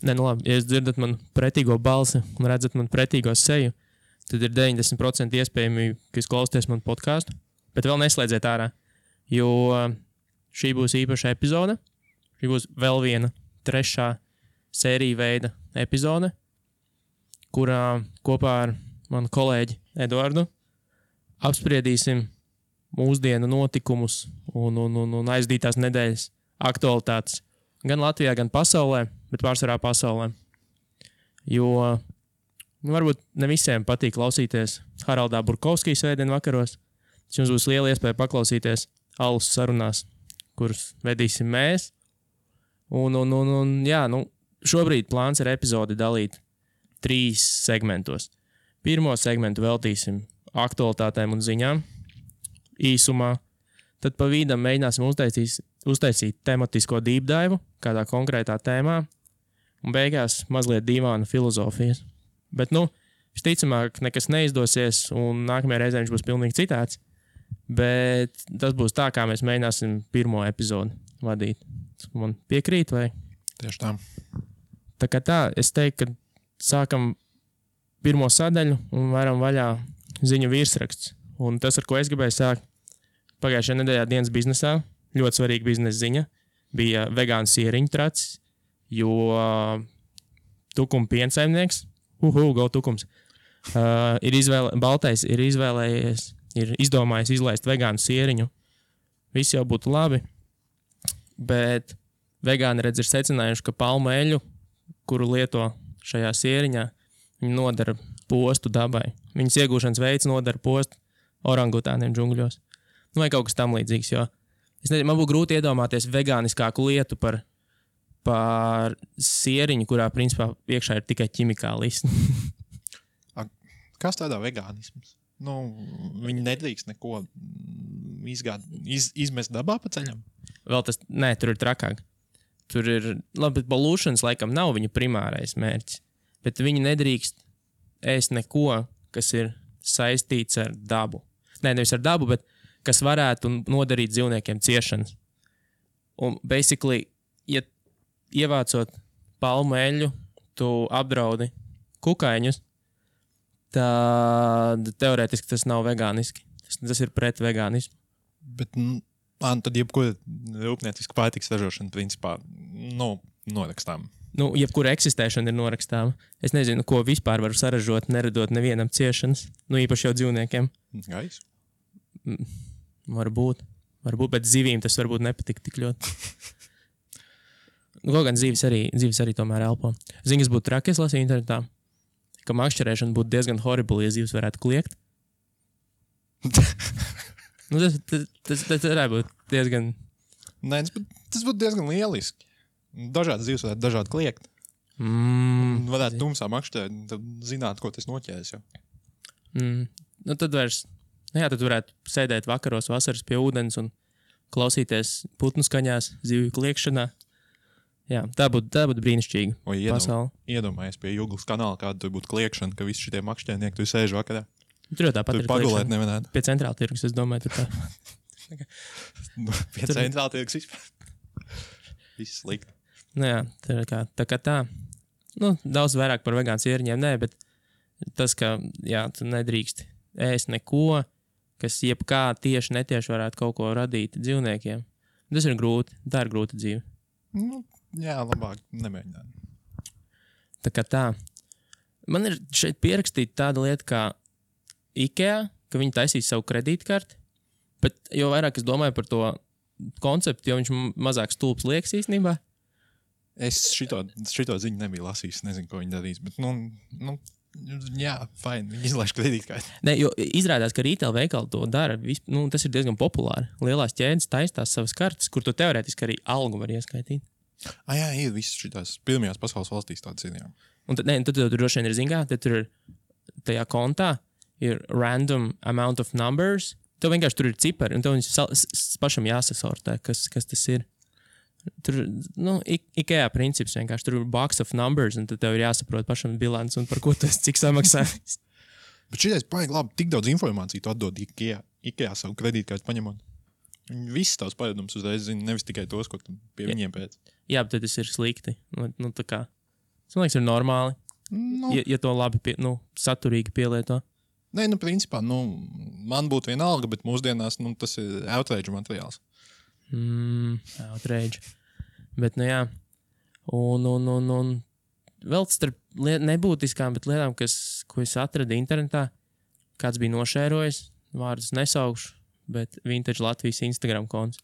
Nē, nu labi, ja jūs dzirdat man pretīgo balsi un redzat man pretīgo seju, tad ir 90% iespējamība, ka jūs klausāties man podcastu, bet vēl neslēdziet ārā, jo šī būs īpaša epizode. Šī būs vēl viena 3. sērija veida epizode, kurā kopā ar manu kolēģi Eduardu apspriedīsim mūsdienu notikumus un aizdītās nedēļas aktualitātes gan Latvijā, gan pasaulē, bet pārsvarā pasaulē. Jo varbūt ne visiem patīk klausīties Haraldā Burkovskija svētdien vakaros. Jums būs liela iespēja paklausīties alus sarunās, kuras vedīsim mēs. Šobrīd plāns ir epizodi dalīt 3 segmentos. Pirmo segmentu veltīsim aktualitātēm un ziņām īsumā. Tad pa vidam mēģināsim uztaisīt tematisko deep dive kādā konkrētā tēmā. Un beigās mazliet dīvaina filozofijas. Bet, visticamāk, nekas neizdosies un nākamajā reizē viņš būs pilnīgi citāds. Bet tas būs tā, kā mēs mēģināsim pirmo epizodi vadīt. Man piekrīt, vai? Tieši tā. Tā kā tā, es teiktu, ka sākam pirmo sadaļu un varam vaļā ziņu virsraksts. Un tas, ar ko es gribēju sākt, pagājušajā nedēļā dienas biznesā, ļoti svarīga biznesa ziņa, bija vegānu sieriņu tracis, jo Tukuma piensaimnieks, go Tukums, Baltais ir izdomājis izlaist vegānu sieriņu. Viss jau būtu labi. Bet vegāni ir secinājuši, ka palmu eļu, kuru lieto šajā sieriņā, viņi nodara postu dabai. Viņas iegūšanas veids nodara postu orangutāniem džungļos. Vai kaut kas tam līdzīgs, jo man būtu grūti iedomāties vegāniskāku lietu par sieriņu, kurā principā iekšā ir tikai ķimikālis. Kas tādā vegānisms? Viņi nedrīkst neko izmest dabā pa ceļam? Vēl tas, tur ir trakāk. Tur ir, bet balūšanas laikam nav viņa primārais mērķis. Bet viņi nedrīkst ēst neko, kas ir saistīts ar dabu. Nevis ar dabu, bet kas varētu nodarīt dzīvniekiem ciešanas. Un basically, ja ievācot palmu eļu, tu apdraudi kukaiņus, tad teorētiski tas nav vegāniski. Tas ir pret vegānismu. Bet, tad jebkura rūpnieciska pārtikas ražošana, principā, norakstām. Jebkura eksistēšana ir norakstāma. Es nezinu, ko vispār varu saražot, neradot nevienam ciešanas. Īpaši jau dzīvniekiem. Gaisu? Varbūt, bet zivīm tas varbūt nepatīk tik ļoti. Kaut gan zivis arī tomēr elpo. Ziņas būtu traki, es lasīju internetā, ka makšķerēšana būtu diezgan horrible, ja zivs varētu kliegt. Tas varētu būt diezgan... Nē, tas būtu diezgan lieliski. Dažādas zivs varētu dažādi kliegt. Varētu tumsā makšķerēt, tad zināt, ko tas noķēs jau. Tad vairs... tad varētu sēdēt vakaros vasaras pie ūdens un klausīties putnu skaņās, zivju kliegšanā. Jā, tā būtu brīnišķīga pasaule. Iedomājies pie Juglas kanāla, kāda tur būtu kliegšana, ka visi šitie makšķernieki tur sēž vakarā. Tur jau tāpat tur ir pagulēt nevarētu. Pie centrāla tirgus, es domāju, tur tā. Pie centrāla tirgus vispār. Viss slikti. Tā kā tā. Daudz vairāk par vegānu sieriņiem, bet tas, ka tu nedrīkst ēst neko, kas jebkā tieši netieši varētu kaut ko radīt dzīvniekiem. Tas ir grūti. Tā ir grūta dzīve. Labāk nemēģināt. Tā kā tā. Man ir šeit pierakstīta tāda lieta kā IKEA, ka viņi taisīs savu kredītkarti, bet jo vairāk es domāju par to konceptu, jo viņš mazāk stulbs liekas īstenībā. Es šito ziņu nebiju lasījis, nezinu, ko viņi darīs, bet fine, viņi izlaiž kredītkarti. Nē, jo izrādās, ka retail veikali to dara, tas ir diezgan populāri. Lielās ķēdes taistās savas kartes, kur tu teorētiski arī algu var ieskaitīt. Ir visas šitās pirmajās pasaules valstīs tādas ir, jā. Un tad tur droši vien ir zingā, tad tur ir tajā kontā ir random amount of numbers. Tev vienkārši tur ir cipari, un tev viņus pašam jāsasortē, kas tas ir. Tur, IKEA princips vienkārši, tur ir box of numbers, un tad tev ir jāsaprot pašam bilants, un par ko tu esi, cik samaksājis. Bet šitais paigi labi, tik daudz informāciju tu atdod IKEA savu kredītkārtu paņemot. Viņi visus tavs paradums uzreiz zina, nevis tikai tos, ko tu pie viņiem pēc. Jā, bet tas ir slikti. Tā kā Tas, man liekas, ir normāli. Nu, Ja to labi, saturīgi pielieto. nē, principā, man būtu vienalga, bet mūsdienās, tas ir outrage materiāls. Outrage. Bet, jā. Un vēl starp nebūtiskām, bet lietām, ko es atradu internetā, kāds bija nošērojis, vārdus nesaukšu, bet Vintage Latvijas Instagram konts.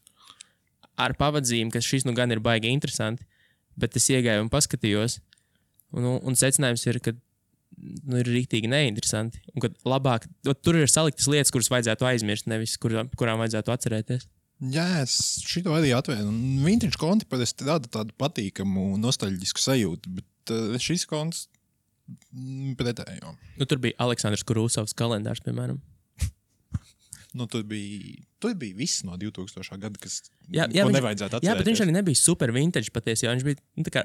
Ar pavadzīm, ka šis gan ir baigi interesanti, bet es iegāju un paskatījos, un secinājums ir, ka ir rīktīgi neinteresanti, un ka labāk, tur ir saliktas lietas, kuras vajadzētu aizmirst, nevis kurām vajadzētu atcerēties. Jā, es šito arī atvēru. Vintage konti parasti rada tādu patīkamu, nostalģisku sajūtu, bet šis konts pretējo. Tur bija Aleksandrs Kurūsovs kalendārs, piemēram. Tur bija viss no 2000. Gada, kas Jā, nevajadzētu atcerēties. bet viņš arī nebija super vintage patiesi, jo viņš bija tā kā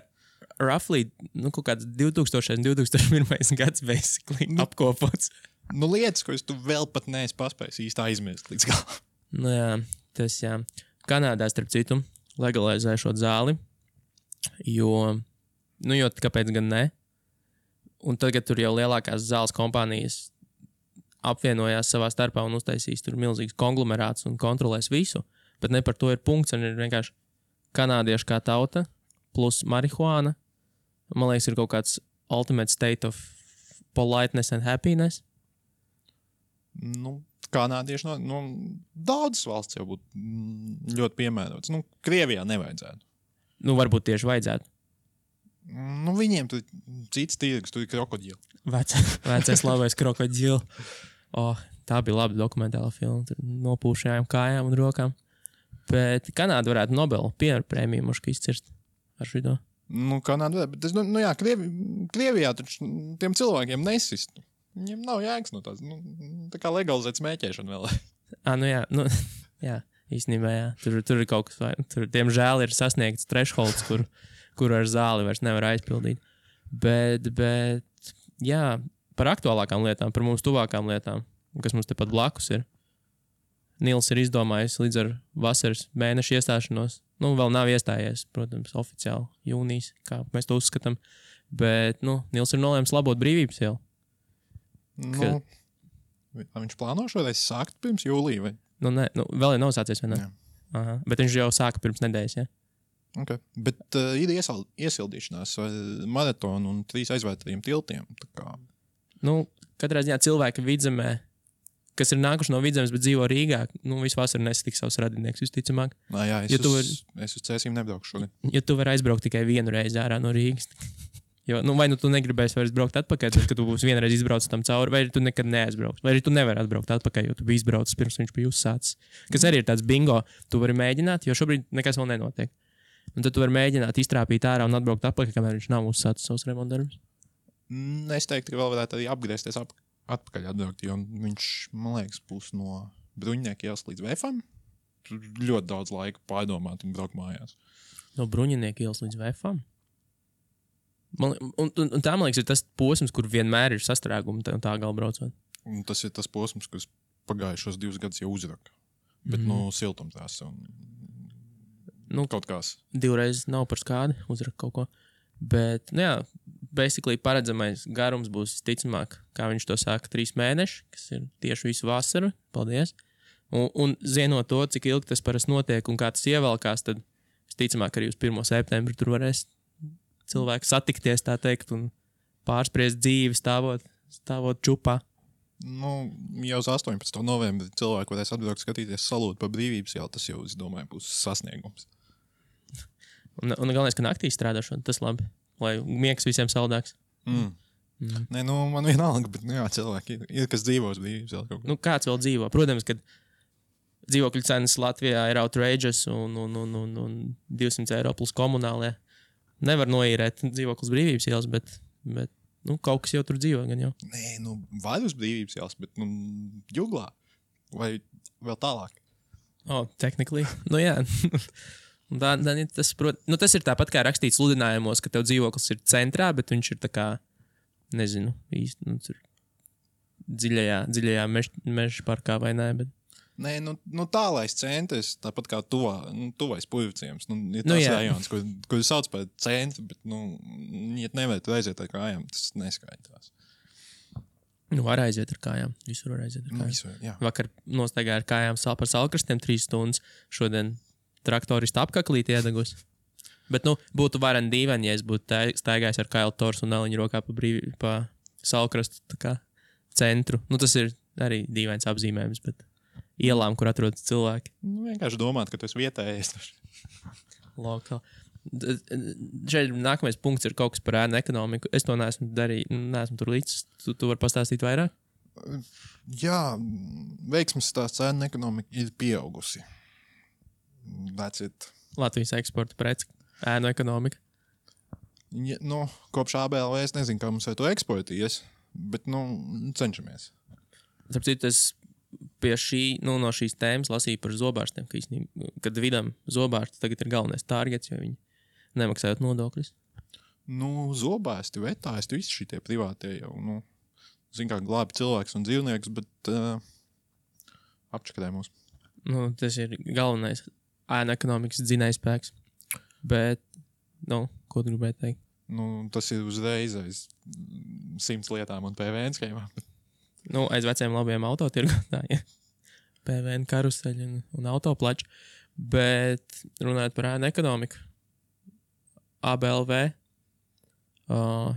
roughly, kaut kāds 2000. un 2001. gads basically apkopots. Lietas, ko tu vēl pat neesi paspējis īsti aizmirst līdz galam. Jā, tas jā. Kanādā, starp citu, legalizē šo zāli, jo kāpēc gan ne? Un tagad tur jau lielākās zāles kompānijas apvienojās savā starpā un uztaisīs tur milzīgs konglomerāts un kontrolēs visu, bet ne par to ir punkts, un ir vienkārši kanādieši kā tauta plus marihuāna. Man liekas, ir kaut kāds ultimate state of politeness and happiness. Kanādieši daudzas valsts jau būtu ļoti piemērotas. Krievijā nevajadzētu. Varbūt tieši vajadzētu. Viņiem tur cits tirgus, tur ir krokodili. Vecais labais krokodili. Tā bija laba dokumentāla filma. Tur nopūšajām kājām un rokām. Bet Kanāda varētu Nobela prēmiju mušku izcirst ar šito. Kanāda, bet es, Krievijā taču tiem cilvēkiem nesist. Viņiem nav jēgas no tās. Tā kā legalizēt smēķēšanu vēl. Jā, īstenībā jā. Tur ir kaut kas, tur diemžēl ir sasniegts thresholds, kur ar zāli vairs nevar aizpildīt. Bet, jā, par aktuālākām lietām, par mums tuvākām lietām, kas mums tepat blakus ir. Nils ir izdomājis līdz ar vasaras mēnešu iestāšanos. Vēl nav iestājies, protams, oficiāli jūnijas, kā mēs to uzskatām. Bet, Nils ir nolēmis labot brīvības ielu. Viņš plāno šoreiz sākt pirms jūlija, vai? Vēl ir nav sācies, vai ne? Aha, bet viņš jau sāka pirms nedēļas, ja? Okay. Bet ir iesildīšanās maratonu un 3 aizvērtajiem tiltiem. Tā kā... Katrā ziņā cilvēki Vidzemē, kas ir nākuši no Vidzemes, bet dzīvo Rīgā, visu vasaru nesatiks savus radinieks, visticamāk. Es uz Cēsīm nebraukšu šogad. Ja tu vari aizbraukt tikai vienu reizi ārā no Rīgas. Jo, vai tu negribēsi vairs braukt atpakaļ, tad, kad tu būsi vienreiz izbraucis tam cauri, vai tu nekad neaizbrauks. Vai arī tu nevari atbraukt atpakaļ, jo tu biji izbraucis pirms viņš bija uzsācis. Kas arī ir tāds bingo, tu vari mēģināt, jo šobrīd nekas vēl nenotiek. Un tad tu vari mēģināt iztrāpīt ārā un atbraukt atpakaļ, kamēr viņš nav uzsācis savus remontdarbus. Es teiktu, ka vēl varētu arī apgriezties atpakaļ atbraukt, jo viņš, man liekas, būs no Bruņinieku ielas līdz VFam. Tur ļoti daudz laika pārdomāt un braukt mājās. No Bruņinieku ielas līdz VFam? Un tā, man liekas, ir tas posms, kur vienmēr ir sastrēgumi un tā gala braucot. Un tas ir tas posms, kas pagājušos 2 gadus jau uzraka. Bet, siltumtās un kaut kās. 2 reizes nav par skādi, uzraka kaut ko. Bet, basically paredzamais garums būs ticamāk, kā viņš to saka, 3 mēneši, kas ir tieši visu vasaru. Paldies. Un zinot to, cik ilgi tas parasti notiek un kā tas ievelkās, tad ticamāk arī uz 1. septembri tur varēs cilvēki satikties, tā teikt, un pārspriest dzīvi stāvot čupā. Jau uz 18. novembri cilvēki varēs atbraukt skatīties salūtu par brīvības ielu, tas jau, es domāju, būs sasniegums. Un galvenais, ka naktī strādāšana, tas labi, lai miegs visiem saldāks. Nē, man vienalga, bet, cilvēki ir kas dzīvo uz brīvības ielu. Kāds vēl dzīvo? Protams, ka dzīvokļu cenas Latvijā ir outrageous un 200 eiro plus komunālie. Nevar noīrēt dzīvoklis brīvības ielas, bet kaut kas jau tur dzīvo gan jau. Nē, vai uz brīvības ielas, bet Juglā vai vēl tālāk. Technically. Jā. Tas ir tāpat kā rakstīts sludinājumos, ka tev dzīvoklis ir centrā, bet viņš ir tā kā, nezinu, īsti, tur dziļajā meža parkā vai nē, bet Nē, tālais centrs, tāpat kā tuvais Purvciems. Ir Nu, tas jā. rajons, kur sauc par centru, bet, ja nevarētu aiziet ar kājām, tas neskaitās. Var aiziet ar kājām. Visur var aiziet ar kājām. Visur, jā. Vakar nostaigāju ar kājām par salkrastiem 3 stundas. Šodien traktoristi apkaklīt iedegus. Bet, būtu vareni dīvaini, ja es būtu staigājis ar Kailu Torsu un Eliņu rokā pa salkrastu tā kā centru. Tas ir arī dīvains apzīmējums, bet ielām, kur atrodas cilvēki. Vienkārši domāt, ka tu esi vietējais. Lokāli. Šeit nākamais punkts ir kaut kas par ēnu ekonomiku. Es to neesmu darījis, neesmu tur līdz. Tu vari pastāstīt vairāk? Jā, veiksmes stāsts ēnu ekonomika ir pieaugusi. That's it. Latvijas eksporta preci, ēnu ekonomika. Ja, kopš ABLV es nezinu, kā mums ar to eksportījies, bet, cenšamies. Tāpēc es pie no šīs tēmas lasīju par zobārstiem, kad vidam zobārsti tagad ir galvenais targets, jo viņi nemaksājot nodokļus. Zobārsti, vetāisti, visi šitie privātie jau, zin kā glābi cilvēks un dzīvnieks, bet apčakadē mūs. Tas ir galvenais ēnu ekonomikas dzinējspēks. Bet, ko tu gribēji teikt? Tas ir uzreiz aiz 100 lietām un PVN schēmām. Aiz veciem labiem autotirgotājiem. PVN karuseļi un autoplači. Bet runājot par ēnu ekonomiku, ABLV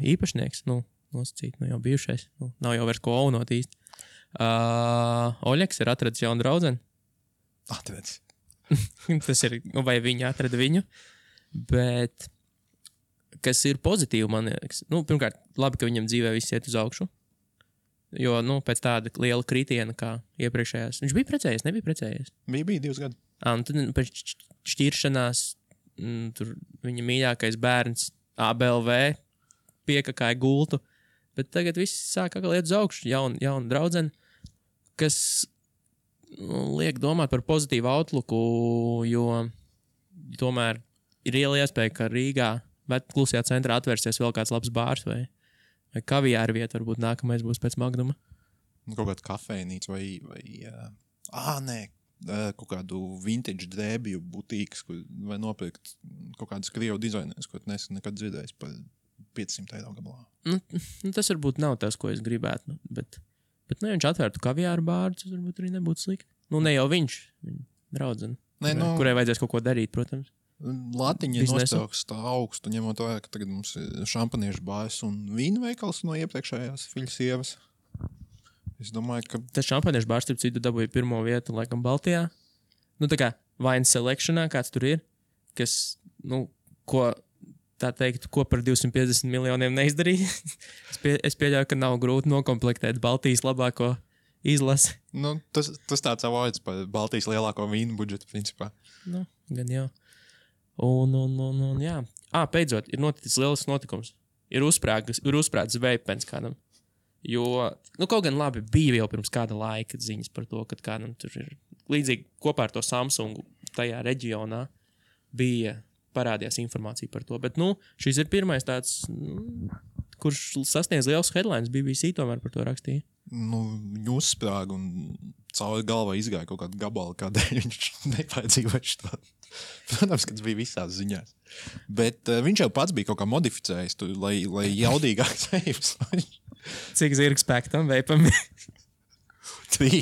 īpašnieks, nosacīt, jau bijušais, nav jau vairs ko aunot īsti. Oļeks ir atradis jaunu draudzeni. Atradis. Tas ir, vai viņi atrada viņu, bet kas ir pozitīvi, man liekas. Pirmkārt, labi, ka viņam dzīvē viss iet uz augšu, jo, pēc tāda liela kritiena kā iepriekšējās. Viņš bija precējies, nebija precējies? Bija 2 gadi. Tad pēc šķiršanās tur viņa mīļākais bērns ABLV piekakāja gultu, bet tagad viss sāk atkal iet uz augšu, jauna draudzene, kas liek domāt par pozitīvu outlooku, jo tomēr ir liela iespēja, ka Rīgā klusajā centrā atvērsies vēl kāds labs bārs vai kaviāra vieta, varbūt nākamais būs pēc Magnuma. Kaut kāda kafejnīca vai kaut kādu vintage drēbju butīkas, vai nopirkt kaut kādas krievu dizainēs, ko neesmu nekad dzirdējis par 500 eiro gabalā. Tas varbūt nav tas, ko es gribētu, bet ja viņš atvērtu kaviāru bāru, tas varbūt arī nebūtu slikti. Ne jau viņš, viņa draudzene, kurai vajadzēs kaut ko darīt, protams. Latiņa nostauks tā augstu, ņemot vērā, ka tagad mums ir šampaniešu bārs un vīna veikals no iepriekšējās fiļu sievas. Es domāju, ka... Tas šampaniešu bārs, starp citu, dabūja 1. vietu, laikam, Baltijā. Tā kā Wine Selectionā, kāds tur ir, kas, ko par 250 miljoniem neizdarīja. Es pieļauju, ka nav grūti nokomplektēt Baltijas labāko izlasi. Tas tāds avoids par Baltijas lielāko vīnu budžetu, principā. Gan jau. Un jā. Beidzot, ir noticis lielisks notikums. Ir uzsprāgts veipens kādam. Jo, kaut gan labi, bija jau pirms kāda laika ziņas par to, ka kādam tur ir līdzīgi kopā ar to Samsungu tajā reģionā parādījās informācija par to. Bet, šis ir pirmais tāds, kurš sasniedz liels headlines, BBC tomēr par to rakstīja. Viņu uzsprāga un cauri galvā izgāja kaut kāda gabala, kādēļ viņš nepaiedzīvoja šo. Protams, ka tas bija visās ziņās. Bet viņš jau pats bija kaut kā modificējis, lai jaudīgāks veips. Cik zirga spēka tam veipam? 3.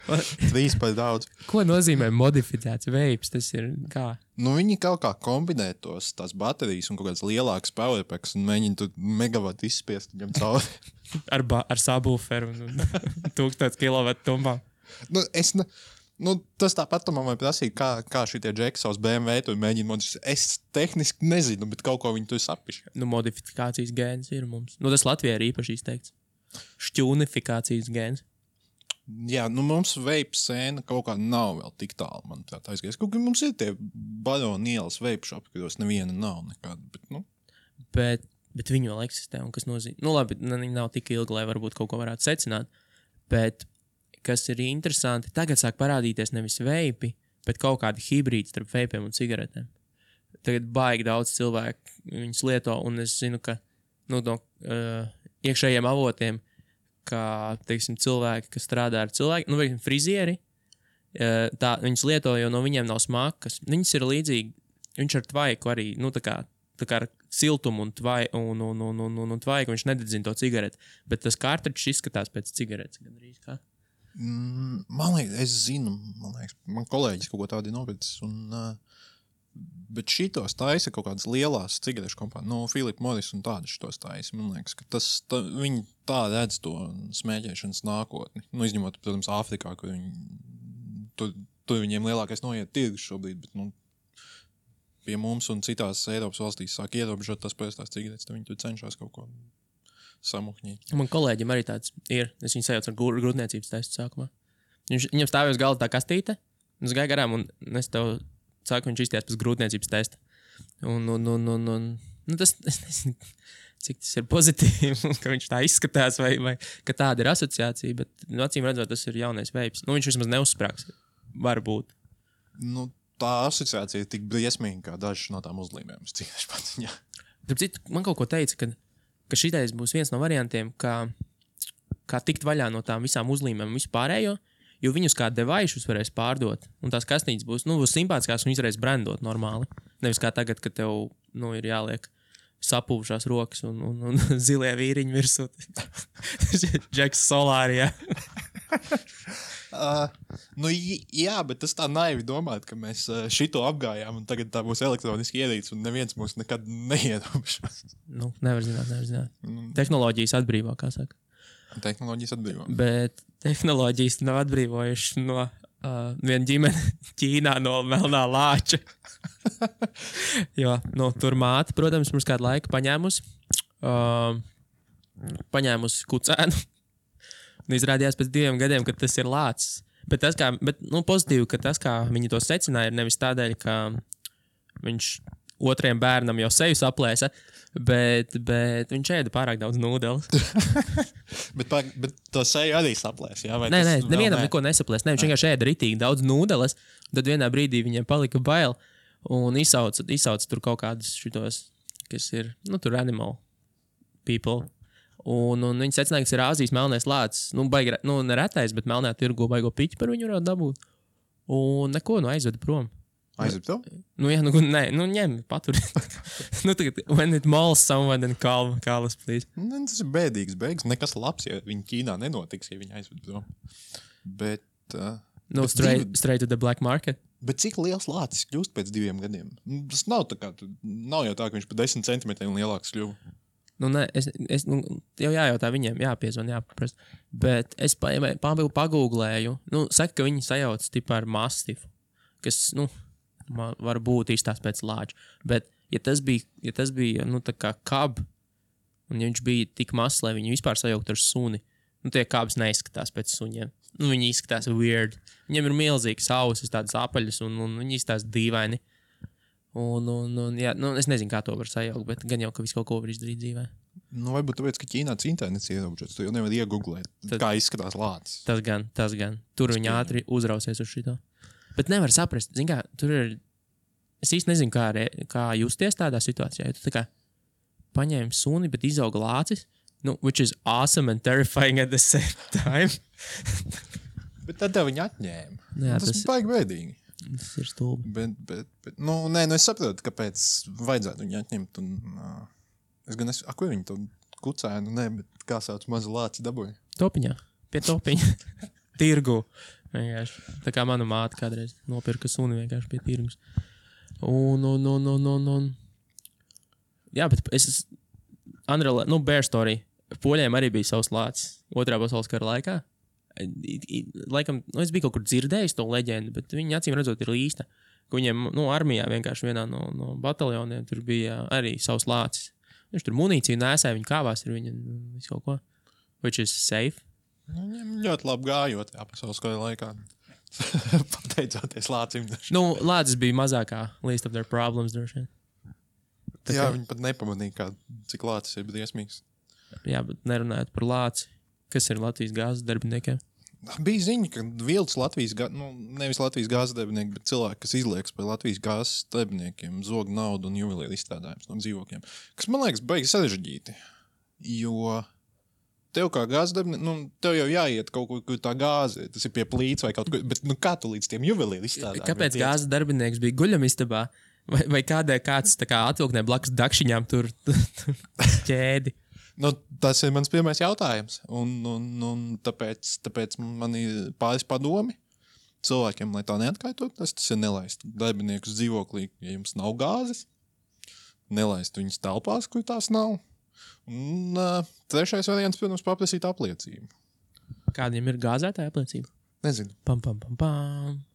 3 par daudz. Ko nozīmē modificēts veips? Tas ir kā? Viņi kaut kā kombinē tās baterijas un kaut kāds lielāks powerpacks un mēģina tu megavatu izspiest viņam cauri. ar subwooferu un 1000 kilovatu tumbām. Tas tāpat man vajag prasīt, kā šitie džeki savus BMW tur mēģina modificēt. Es tehniski nezinu, bet kaut ko viņi tur sapišķi. Modifikācijas gēns ir mums. Tas Latvijā ir īpaši izteikts. Šķūnifikācijas gēns. Jā, mums veipu sēna kaut kā nav vēl tik tālu, manuprāt, aizgājis. Kaut kā mums ir tie baroni ielas veipu šopi, kuros neviena nav nekāda, bet, Bet viņi vēl eksistē, un kas nozīmē. Labi, viņi nav tik ilgi, lai varbūt kaut ko varētu secināt, bet kas ir interesanti, tagad sāk parādīties nevis veipi, bet kaut kādi hibrīdi starp veipiem un cigaretēm. Tagad baigi daudz cilvēku viņus lieto, un es zinu, ka no iekšējiem avotiem, teiksim, cilvēki, kas strādā ar cilvēkiem, nu, vai frizieri, viņas lieto, jo no viņiem nav smakas. Viņas ir līdzīgi, viņš ar tvaiku arī, nu, tā kā ar siltumu un tvaiku, viņš nededzina to cigareti, bet tas kārtričs izskatās pēc cigaretes. Gandrīz kā. Man liekas, es zinu, man kolēģis kaut ko tādu nopircis, bet šitos taisa kaut kādas lielās cigarešu kompānijas, no Philip Morris un tādas šitos taisa. Man liekas, ka viņi tā redz to smēķēšanas nākotni. Nu, izņemot, protams, Āfrikā, kur tur viņiem lielākais noiet tirgus šobrīd, bet, nu, pie mums un citās Eiropas valstīs sāk ierobežot tas parastās cigaretes, tad viņi tur cenšas kaut ko samuhņīt. Man kolēģim arī tāds ir. Es viņu sajaucu ar grūtniecības testu sākumā. Viņam stāvēja uz galda tā kastīte, un es gāju garām, un es tev sāku, viņš izties pēc grūtniecības testa. Nu, tas, es nezinu, cik tas ir pozitīvi, ka viņš tā izskatās, vai ka tāda ir asociācija, bet, nu, acīm redzot, tas ir jaunais veips. Nu, viņš vismaz neuzsprāgs. Varbūt. Nu, tā asociācija ir tik briesmīga, kā dažas no tām uzlīmēm. Tāpēc man kaut ko teica, ka šitais būs viens no variantiem, kā tikt vaļā no tām visām uzlīmēm un vispārējo, jo viņus kā devaišus varēs pārdot, un tās kastītes būs simpātiskās un varēs brandot normāli. Nevis kā tagad, kad tev, nu, ir jāliek sapūvušās rokas un zilie vīriņi virsū. Džeks Solārijā. Nu, jā, bet tas tā naivi domāt, ka mēs šito apgājām un tagad tā būs elektroniski ierīce un neviens mūs nekad neierobežos. Nu, nevar zināt. Tehnoloģijas atbrīvo, kā saka. Tehnoloģijas atbrīvo. Bet tehnoloģijas nav atbrīvojuši no viena ģimene Ķīnā no melnā lāča. Jo, nu, tur māte, protams, mums kādu laiku paņēmusi kucēnu. Un izrādījās pēc 2 gadiem, ka tas ir lācis. Bet pozitīvi, ka tas, kā viņi to secināja, ir nevis tādēļ, ka viņš otriem bērnam jau seju saplēsa, bet viņš ēda pārāk daudz nūdeles. bet to seju arī saplēs, jā? Vai nē, nevienam neko nesaplēs. Viņš vienkārši ēda ritīgi daudz nūdeles, tad vienā brīdī viņiem palika bail un izsauca tur kaut kādus šitos, kas ir, nu, tur animal people. Un viņi secināja, ka ir Āzijas melnais lācis. Nu, neretais, bet melnā tirgo baigo piķi par viņu varētu dabūt. Un neko, aizveda prom. Aizveda tev? Nu, jā, ņem, patur. Tagad, when it mauls someone, then call us, please. Tas ir bēdīgs beigas. Nekas labs, ja viņi Ķīnā nenotiks, ja viņi aizveda prom. Bet... straight to the black market. Bet cik liels lācis kļūst pēc 2 gadiem? Tas nav tā kā, nav jau tā, ka viņš pa 10 centimetriem lielāks kļuva. Nu, nē, es jau jājautā viņiem, jāpiezvan, jāpaprast. Bet es pagūglēju, saka, ka viņi sajauc tipā ar mastifu, kas, var būt izstās pēc lāča. Bet, ja tas bija, tā kā kab, un ja viņš bija tik mazs, lai viņu vispār sajaukt ar suni, tie kabs neizskatās pēc suņiem. Viņi izskatās weird. Viņiem ir milzīgas ausis, tādas apaļas, un viņi izskatās dīvaini. Jā, es nezinu, kā to var sajaukt, bet gan jau, ka visu kaut ko var izdarīt dzīvē. Varbūt tāpēc, ka Ķīnā internets ierobežots, tu jau nevar iegooglēt, kā izskatās lācis. Tas gan. Tur viņi ātri uzrausies uz šito. Bet nevar saprast, zin kā, tur ir... Es īsti nezinu, kā justies tādā situācijā. Ja tu tā kā paņēmi suni, bet izauga lācis, which is awesome and terrifying at the same time. Bet tad tev viņi atņēma. Jā, tas baigi bēdīgi. Tas ir stulbi. Bet es saprotu, kāpēc vajadzētu viņu atņemt. Kur viņi to kucēnu? Nē, bet kā sauc mazu lāci dabūja? Topiņā. Pie topiņa. Tirgu. Vienkārši. Tā kā mana māte kādreiz nopirka suni vienkārši pie tirgus. Jā, bet Bear Story. Poļiem arī bija savs lācis 2. pasaules kara laikā. Laikam, es biju kaut kur dzirdējis to leģendu, bet viņi acīm redzot ir īsta. Ka viņiem, armijā vienkārši vienā no bataljoniem tur bija arī savs lācis. Viņš tur munīciju nēsāja, viņi kāvās ar viņu visu kaut ko. Which is safe. Viņiem ļoti labi gājot pasaules kara laikā. Pateicoties lācim. Lācis bija mazākā least of their problems droši vien. Jā, viņi pat nepamanīja, cik lācis ir briesmīgs. Jā, bet nerunājot par lāci. Kas ir Latvijas gāzes darbiniekiem? Bija ziņa, ka vilks Latvijas nevis Latvijas gāzes darbinieki, bet cilvēki, kas izliekas par Latvijas gāzes darbiniekiem, zog naudu un juvelieru izstrādājumus no dzīvokļiem. Kas man liekas baigi sarežģīti, jo tev kā gāzes darbinieks, tev jau jāiet kaut kur tā gāze, tas ir pie plīts vai kaut kur, bet kā tu līdz tiem juvelīri izstrādāji? Kāpēc gāzes darbinieks bija guļamistabā? Vai kāds tā kā atvilknē blakus dakšiņām tur ķēdi? Tas ir mans pirmais jautājums, un tāpēc man ir pāris padomi cilvēkiem, lai tā neatkārtot, tas ir nelaist darbiniekus dzīvoklī, ja jums nav gāzes, nelaist viņus telpās, kur tās nav. Un trešais variants, protams, paprasīt apliecību. Kādiem ir gāzētāja apliecība? Nezinu. Pam.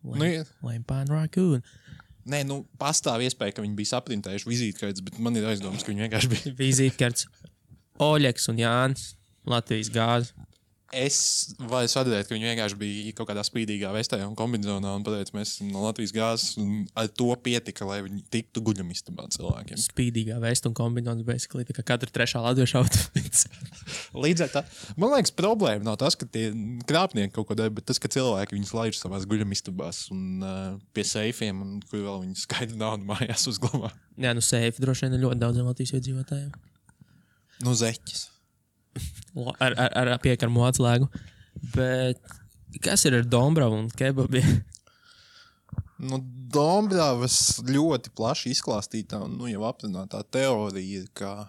Lame pan raccoon. Nē, pastāv iespēja, ka viņi bija saprintējuši vizītkartes, bet man ir aizdomas, ka viņi vienkārši bija. Vizītkartes. Oļeks un Jānis. Latvijas gāze. Es varu sadarbēt, ka viņi vienkārši bija kaut kādā spīdīgā vestē un kombinizonā un pateica, mēs esam no Latvijas gāzes un ar to pietika, lai viņi tiktu guļamistabā cilvēkiem. Spīdīgā vesta un kombinizons, basically, tā kā katra trešā latviešu outfits. Līdz ar tā, man liekas, problēma nav tas, ka tie krāpnieki kaut ko dara, bet tas, ka cilvēki viņus laiž savās guļamistabās un pie seifiem, un kur vēl viņi skaidri naudu mājās uzglabā. Jā, seifi droši vien ir ļoti daudziem Latvijas iedzīvotājiem. Zeķis. Ar piekarmu atslēgu. Bet kas ir ar Dombravu un kebabi? Dombravas ļoti plaši izklāstītā un jau apzinātā teorija ir, ka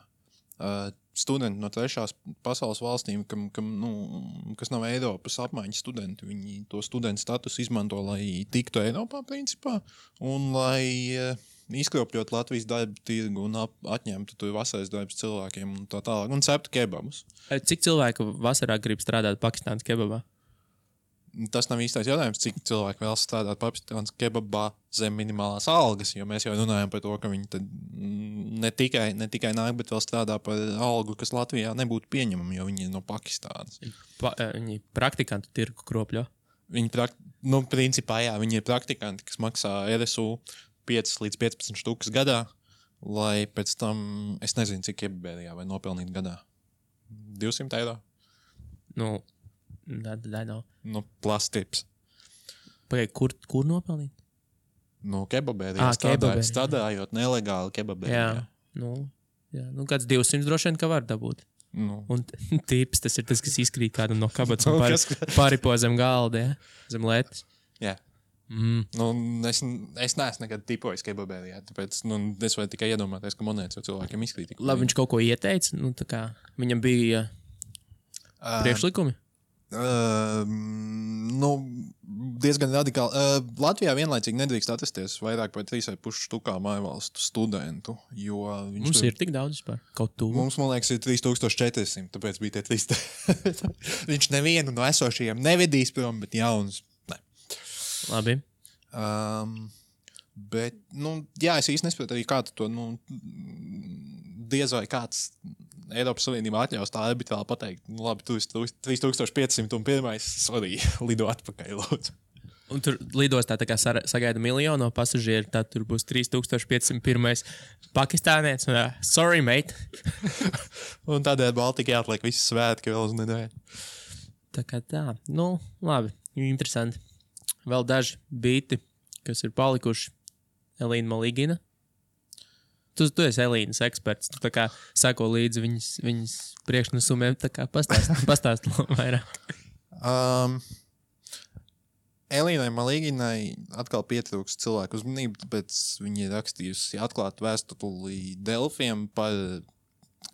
studenti no trešās pasaules valstīm, kas nav Eiropas apmaiņas studenti, viņi to studentu status izmanto, lai tiktu Eiropā principā un lai izkropļot Latvijas darba tirgu un atņemtu tur vasaras darbs cilvēkiem un tā tālāk, un ceptu kebabus. Cik cilvēku vasarā grib strādāt Pakistānas kebabā? Tas nav īstais jautājums, cik cilvēki vēl strādāt Pakistānas kebabā zem minimālās algas, jo mēs jau runājam par to, ka viņi tad ne tikai nāk, bet vēl strādā par algu, kas Latvijā nebūtu pieņemama, jo viņi ir no Pakistānas. Viņi praktikantu tirgu kropļo? Principā jā, viņi ir praktikanti, kas maksā RSU 5 līdz 15 štukas gadā, lai pēc tam, es nezinu, cik kebabērijā vai nopelnīt gadā. 200 eiro? That nav. Plastips. Pagaid, kur nopelnīt? Kebabērijā strādājot nelegāli kebabērijā. Jā, kāds 200 droši vien, ka var dabūt. Un tips, tas ir tas, kas izkrīt kādam no kabatas un paripo zem galda, zem lētas. Jā. Es neesmu nekad tipojis kebabērijā, tāpēc es varu tikai iedomāties, ka monētas jau cilvēkiem izkrīt. Labi, viņš kaut ko ieteica, tā kā viņam bija priekšlikumi? Diezgan radikāli. Latvijā vienlaicīgi nedrīkst atrasties vairāk par 3,5 štukā mājvalstu studentu, jo mums ir tik daudz vispār, kaut tuvu. Mums, man liekas, ir 3400, tāpēc bija tie 300. Viņš nevienu no esošajiem nevedīs prom, bet jaunus. Labi. Bet, jā, es īsti nesaprotu arī kādu to, diez vai kāds Eiropas Savienībā atļaus tā arbitrāli pateikt, labi, tu esi 3500 un pirmais, sorry, lido atpakaļ, lūdzu. Un tur lidostā tā kā sagaida miljonu pasažieru, tad tur būs 3501 pakistānietis. Sorry, mate. Un tādēļ Baltika jāatliek visi svētki vēl uz nedēļu. Tā kā tā. Labi. Interesanti. Vēl daži bīti, kas ir palikuši. Elīna Maligina. Tu esi Elīnas eksperts. Tu tā kā sako līdzi viņas priekšnesumiem. Tā kā pastāst vairāk. Elīnai Maliginai atkal pietrūks cilvēku uzmanību, tāpēc viņa ir rakstījusi atklātu vēstuli Delfiem par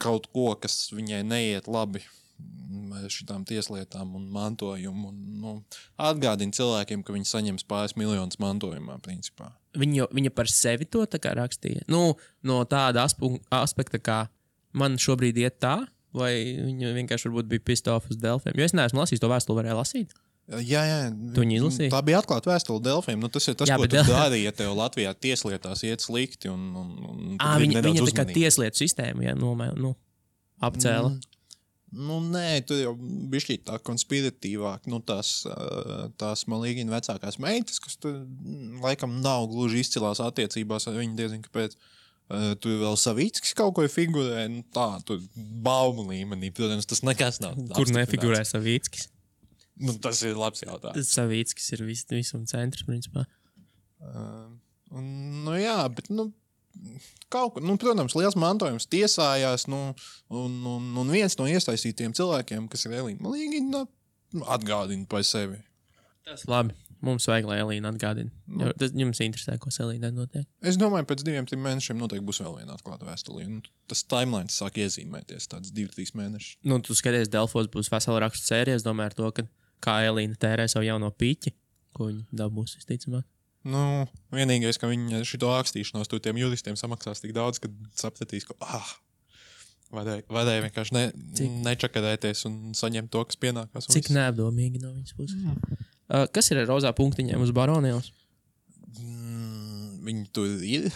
kaut ko, kas viņai neiet labi ar šitām tieslietām un mantojumu. Atgādina cilvēkiem, ka viņi saņems pāris miljonus mantojumā, principā. Viņa par sevi to tā kā rakstīja? No tāda aspekta, kā man šobrīd iet tā, vai viņa vienkārši varbūt bija pissed off uz Delfiem? Jo es neesmu lasījis to vēstuli, varēju lasīt. Jā. Tu viņu izlasīji? Tā bija atklāta vēstule Delfiem. Tas ir tas, ko tu dari, ja tev Latvijā tieslietās iet slikti. Viņa tā kā tieslietu sistēmu, apcēla. Nē, tur jau bišķīt tā konspiratīvāk. Tās Maligina vecākās meitas, kas tur laikam nav gluži izcilās attiecībās ar viņu, diezin kāpēc. Tur vēl Savickis kaut ko figurē. Tur baumu līmenī. Protams, tas nekas nav. Kur nefigurē Savickis? Tas ir labs jautājums. Savickis ir visam centrs, principā. Jā, bet kaut kur, protams, liels mantojums tiesājās, un viens no iesaistītiem cilvēkiem, kas ir Elīna Līgina, atgādina par sevi. Tas labi. Mums vajag, lai Elīna atgādina. Tas jums interesē, ko Elīna notiek. Es domāju, pēc 2-3 mēnešiem noteikti būs vēl viena atklāta vēstulī. Tas timelines sāk iezīmēties, tāds 2-3 mēneši. Tu skaties, Delfos būs vesela rakstu sērija. Es domāju ar to, ka kā Elīna tērē savu jauno piķi, ko viņa dabūs, visticamāk. Vienīgais, ka viņi šito rakstīšanos tur tiem juristiem samaksās tik daudz, ka sapratīs, ka varēja vienkārši nečakarēties un saņemt to, kas pienākās. Cik neapdomīgi no viņas puses. Kas ir ar rozā punktiņiem uz Baronielas? Viņi tur ir.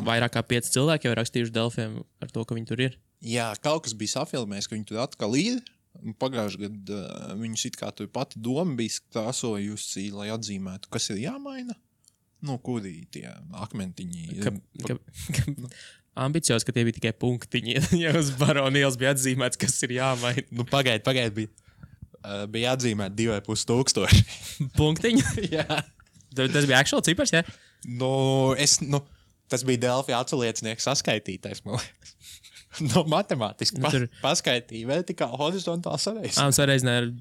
Vairāk kā 5 cilvēki jau rakstījuši Delfiem ar to, ka viņi tur ir. Jā, kaut kas bija safilmējis, ka viņi tur atkal ir. Pagājuši gadu viņus it kā tur pati doma bija krāsojusi, lai atzīmētu, kas ir jāmaina. Kuri tie akmentiņi. Ambicios, ka tie bija tikai punktiņi. Ja uz Baronielas bija atzīmēts, kas ir jāmaina. Pagaid bija atzīmēt 2500. Punktiņi? Jā. Tas bija actual cipars, jā? Tas bija Delfi atsaliecinieks saskaitītais, man liekas. Matemātiski paskaitīja vertikāli, horizontāli sareizināja. Sareizināja ar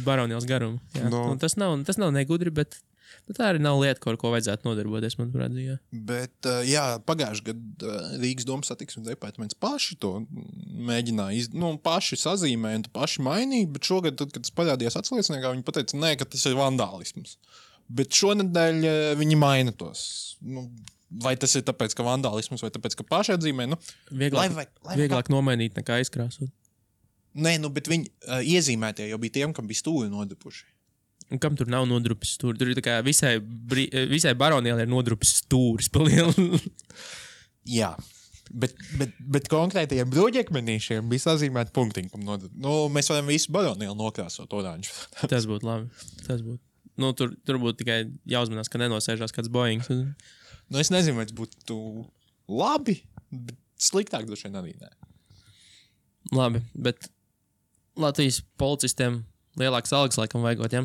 Baronielas garumu. Tas nav negudri, bet tā arī nav lieta, ar ko vajadzētu nodarboties, manuprāt. Bet, pagājuši gadu Rīgas domas satiksmes departaments paši to mēģināja, paši sazīmēja un paši mainīja, bet šogad, tad, kad tas parādījās atsalieciniekā, viņi pateica, nē, ka tas ir vandālisms. Bet šonedēļ viņi maina tos. Vai tas ir tāpēc, ka vandālisms, vai tāpēc, ka paši atzīmē? Vieglāk nomainīt nekā izkrāsot. Nē, bet viņi iezīmētie jau bija tiem, kam bija stūri nodrupuši. Un kam tur nav nodrupis stūri? Tur ir tā kā visai Baronielai ir nodrupis stūris pa lielu. Jā, bet konkrētajiem bruģekmenīšiem bija sazīmēti punktiņi, kam nodrupis. Mēs varam visu Baronielu nokrāsot oranžu. Tas būtu labi. Tas būtu. Tur būtu tikai jāuzmanās, ka nenosēžās kāds Boeings. Es nezinu, vai tas būtu labi, bet sliktāk droši vien arī nē. Labi, bet Latvijas policistiem lielāks algas laikam vajagot, ja?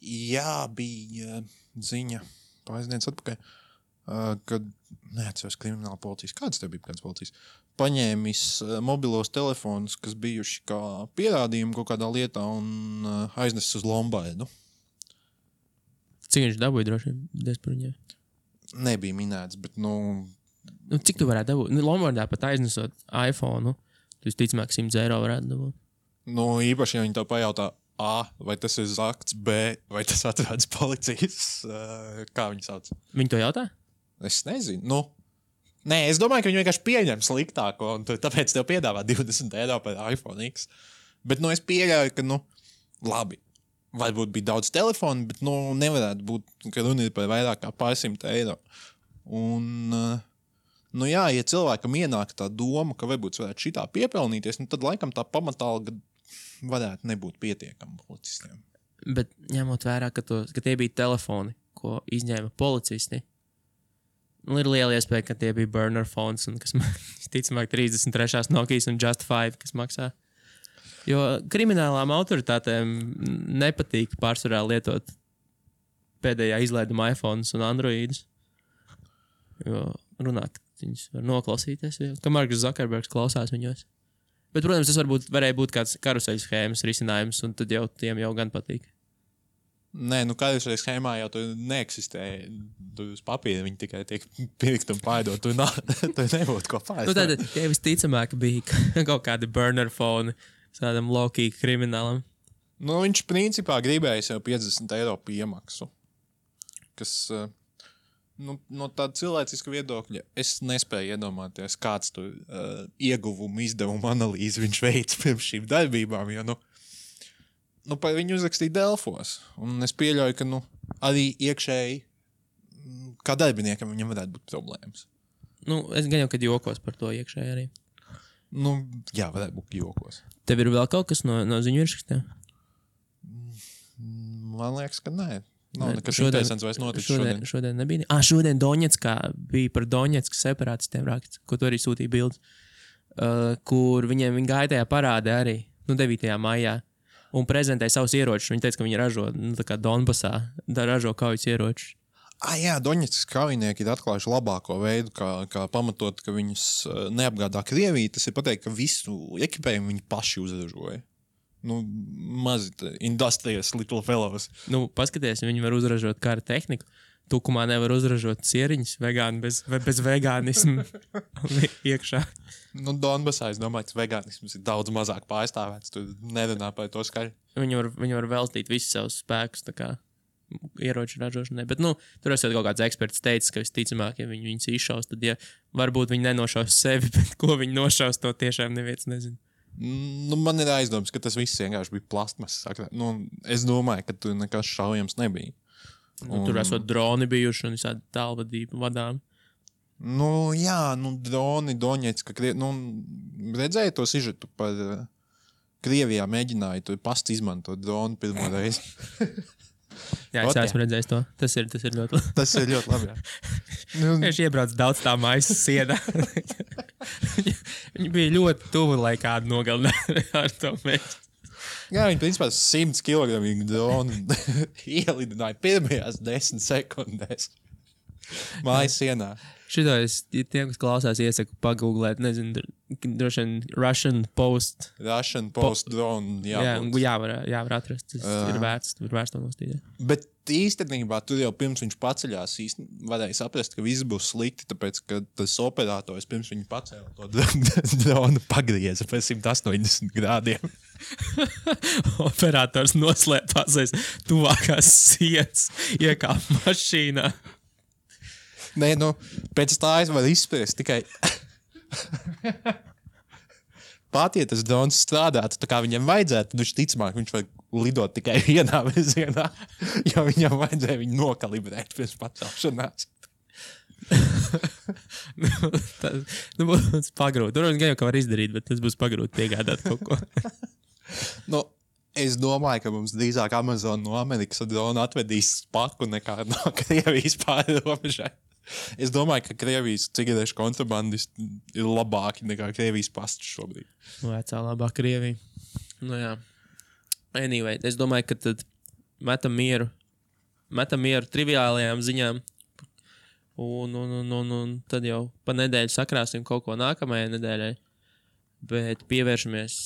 Jā, bija ziņa pāris dienas atpakaļ, kad, neatceros, krimināla policijas, kāds tev bija kāds policijas, paņēmis mobilos telefonus, kas bijuši kā pierādījumi kaut kādā lietā un aiznesis uz Lombardu. Cik viņš dabūja droši vien par viņiem? Nebija minēts, bet, cik tu varētu dabūt? Lombardā pat aiznesot iPhone, tu visticamāk 100 eiro varētu dabūt. Īpaši, ja viņi tev pajautā, A, vai tas ir zakts, B, vai tas atrodas policijas, kā viņi sauc? Viņi to jautā? Es nezinu, Nē, es domāju, ka viņi vienkārši pieņem sliktāko, un tāpēc tev piedāvā 20 eiro par iPhone X. Bet, es pieļauju, ka, labi, varbūt bija daudz telefonu, bet, nevarētu būt, ka runa ir par vairāk kā pār 100 eiro. Un, ja cilvēkam ienāk tā doma, ka varbūt varētu šitā piepelnīties, tad laikam tā pamatalga varētu nebūt pietiekama policistiem. Bet ņemot vērā, ka tie bija telefoni, ko izņēma policisti, ir liela iespēja, ka tie bija burner phones, un kas, ticamāk, 33. Nokijas un Just 5, kas maksā. Jo kriminālām autoritātēm nepatīk pārsvarā lietot pēdējā izlaiduma iPhones un Androidus. Jo runāt, viņus var noklausīties, ka Marks Zuckerbergs klausās viņos. Bet, protams, tas varēja būt kāds karuseļu schēmas risinājums, un tad jau tiem jau gan patīk. Nē, karuseļu schēmā jau tur neeksistē. Tur uz papīra viņi tikai tiek pirkt un pārdot. Tur nebūtu ko pārdot. Tad tie visticamāk bija kaut kādi burner phone tādam low-key kriminālam. Viņš principā gribēja jau 50 eiro piemaksu. Kas, no tāda cilvēciska viedokļa, es nespēju iedomāties, kāds tur ieguvumu izdevumu analīzi viņš veids pirms šīm darbībām, jo, par viņu uzrakstīja Delfos. Un es pieļauju, ka, arī iekšēji, kā darbiniekam viņam varētu būt problēmas. Es gan jau, kad jokos par to iekšēji arī. Jā, varētu būt jokos. Tev ir vēl kaut kas no ziņu virsrakstiem? Man liekas, ka nē. Nav nekas interesants vairs noticis šodien. Šodien nebija. Šodien Doņetskā bija par Doņetskas separātistiem raksts, ko tu arī sūtīja bildes, kur viņi gāja tajā parādē arī, 9. maijā, un prezentēja savus ieročus. Viņi teica, ka viņi ražo, tā kā Donbasā, ražo kaujas ieročus. Jā, Doņetskas kaujinieki ir atklājuši labāko veidu, kā pamatot, ka viņus neapgādā Krievija. Tas ir pateikt, ka visu ekipējumu viņi paši uzražoja. Mazi industrious little fellows. Paskaties, viņi var uzražot kara tehniku. Tukumā nevar uzražot cieriņus bez vegānismu iekšā. Donbasā, es domāju, ka vegānisms ir daudz mazāk pārstāvēts. Tu nerunā par to skaļi. Viņi var veltīt visus savus spēkus, tā kā ieroču ražošanai. Bet, tur esot kaut kāds eksperts teicis, ka visticamāk, ja viņus izšaus, tad, varbūt viņi nenošaus sevi, bet ko viņi nošaus, to tiešām neviens nezina. Man ir aizdoms, ka tas viss vienkārši bija plastmasas. Es domāju, ka tur nekas šaujams nebija. Tur esot droni bijuši un visādi tālvadību vadām. Jā, droni, Doņetska, redzēju to sižetu par Krievijā mēģināja to pastu izmantot dronu pirmo reizi. Jā, es esmu redzējis to. Tas ir ļoti labi. Tas ir ļoti labi, jā. Viņš iebrauc daudz tā maisa sienā. Viņi bija ļoti tuvu, lai kādu nogalinātu ar to mēģi. Jā, viņi principā 100 kg dronu ielidināja pirmajās 10 sekundēs. Mājas sienā. Šito tiem, kas klausās, iesaku pagooglēt, nezinu, droši vien Russian Post drone. Jā, var atrast. Tas ir vērts to nostīdēt. Bet īstenībā tur jau pirms viņš paceļās varēja saprast, ka viss būs slikti, tāpēc, ka tas operators pirms viņa pacēla to dronu pagrieza pēc 180 grādiem. Operators noslēpās aiz tuvākās sienas, iekāp mašīnā. Nē, pēc tā es varu izspriest tikai pat, ja tas drons strādātu tā kā viņam vajadzētu, tad viņš var lidot tikai vienā virzienā, jo viņam vajadzēja viņu nokalibrēt pirms pacelšanās. Tas pagrūt. Tur gan jau ka var izdarīt, bet tas būs pagrūt piegādāt kaut ko. Es domāju, ka mums drīzāk Amazon no Amerikas dronu atvedīs spaku nekā no Krievijas pāri robežai. Es domāju, ka Krievijas cigarešu kontrabandisti ir labāki nekā Krievijas pasts šobrīd. Vecā labā Krievija. Jā. Anyway, es domāju, ka tad metam mieru triviālajām ziņām un tad jau pa nedēļu sakrāsim kaut ko nākamajai nedēļai. Bet pievēršamies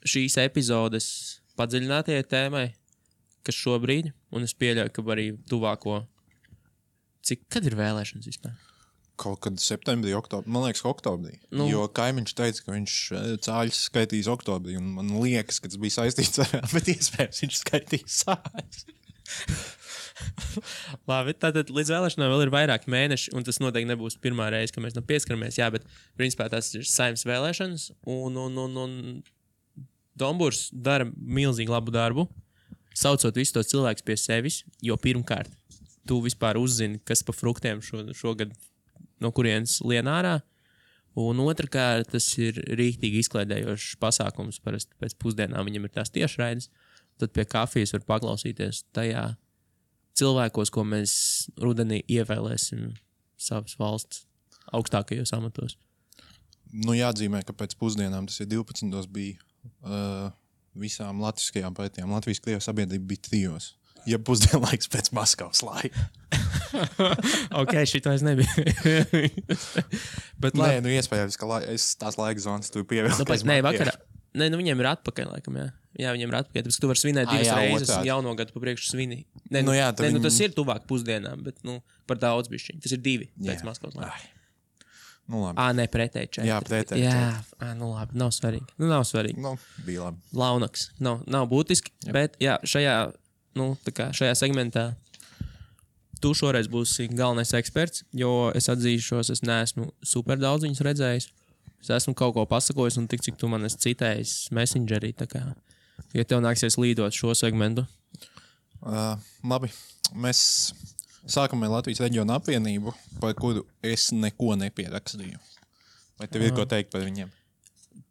šīs epizodes padziļinātajai tēmai, kas šobrīd, un es pieļauju, ka arī tuvāko. Kad ir vēlēšanas vispār? Kaut kad septembrī, oktobrī. Man liekas, oktobrī. Jo kaimiņš teica, ka viņš cāļus skaitīs oktobrī, un man liekas, ka tas bija saistīts ar, bet iespējams viņš skaitīs sāļus. Labi, tātad līdz vēlēšanām vēl ir vairāki mēneši, un tas noteikti nebūs pirmā reize, ka mēs pieskaramies, bet principā tas ir Saeimas vēlēšanas, un Domburs dara milzīgi labu darbu, saucot visus tos cilvēkus pie sevis, jo pirmkārt tu vispār uzzini, kas pa fruktiem šogad no kurienes lien ārā, un otrkārt tas ir rīktīgi izklaidējošs pasākums, parasti pēc pusdienām viņam ir tās tiešraides, tad pie kafijas var paklausīties tajā cilvēkos, ko mēs rudenī ievēlēsim savas valsts augstākajos amatos. Jāatzīmē, ka pēc pusdienām, tas ir 12. bija visām latviskajām partijām. Latvijas-Krievijas sabiedrība bija 3. Ja pusdienlaiks pēc Maskavas laika. Ok, šito es nebiju. Bet nē, iespējams, ka es tās laika zonas tu pievēlēs. Nē, vakarā. Nē, viņiem ir atpakaļ, laikam, jā. Jā, viņiem ir atpakaļ. Tāpēc, ka tu vari svinēt 2 reizes un jauno gadu pa priekšu svini. Nē, tas ir tuvāk pusdienām, bet, par daudz bišķiņ. Tas ir 2 pēc Maskavas laika. Labi. Nē, pretēji 4. Jā, pretēji 4. Jā, labi, nav svarīgi. Nav svarīgi. Bija labi. Launaks. Nav būtiski, bet, jā, šajā segmentā tu šoreiz būsi galvenais eksperts, jo es atzīšos, es neesmu super daudz viņus redzējis. Es esmu kaut ko pasakojis un tik, cik tu man esi citējis Messengerī, tā kā, ja tev nāksies līdot šo segmentu. Labi, mēs sākam ar Latvijas reģionu apvienību, par kuru es neko nepierakstīju. Vai tev ir ko teikt par viņiem?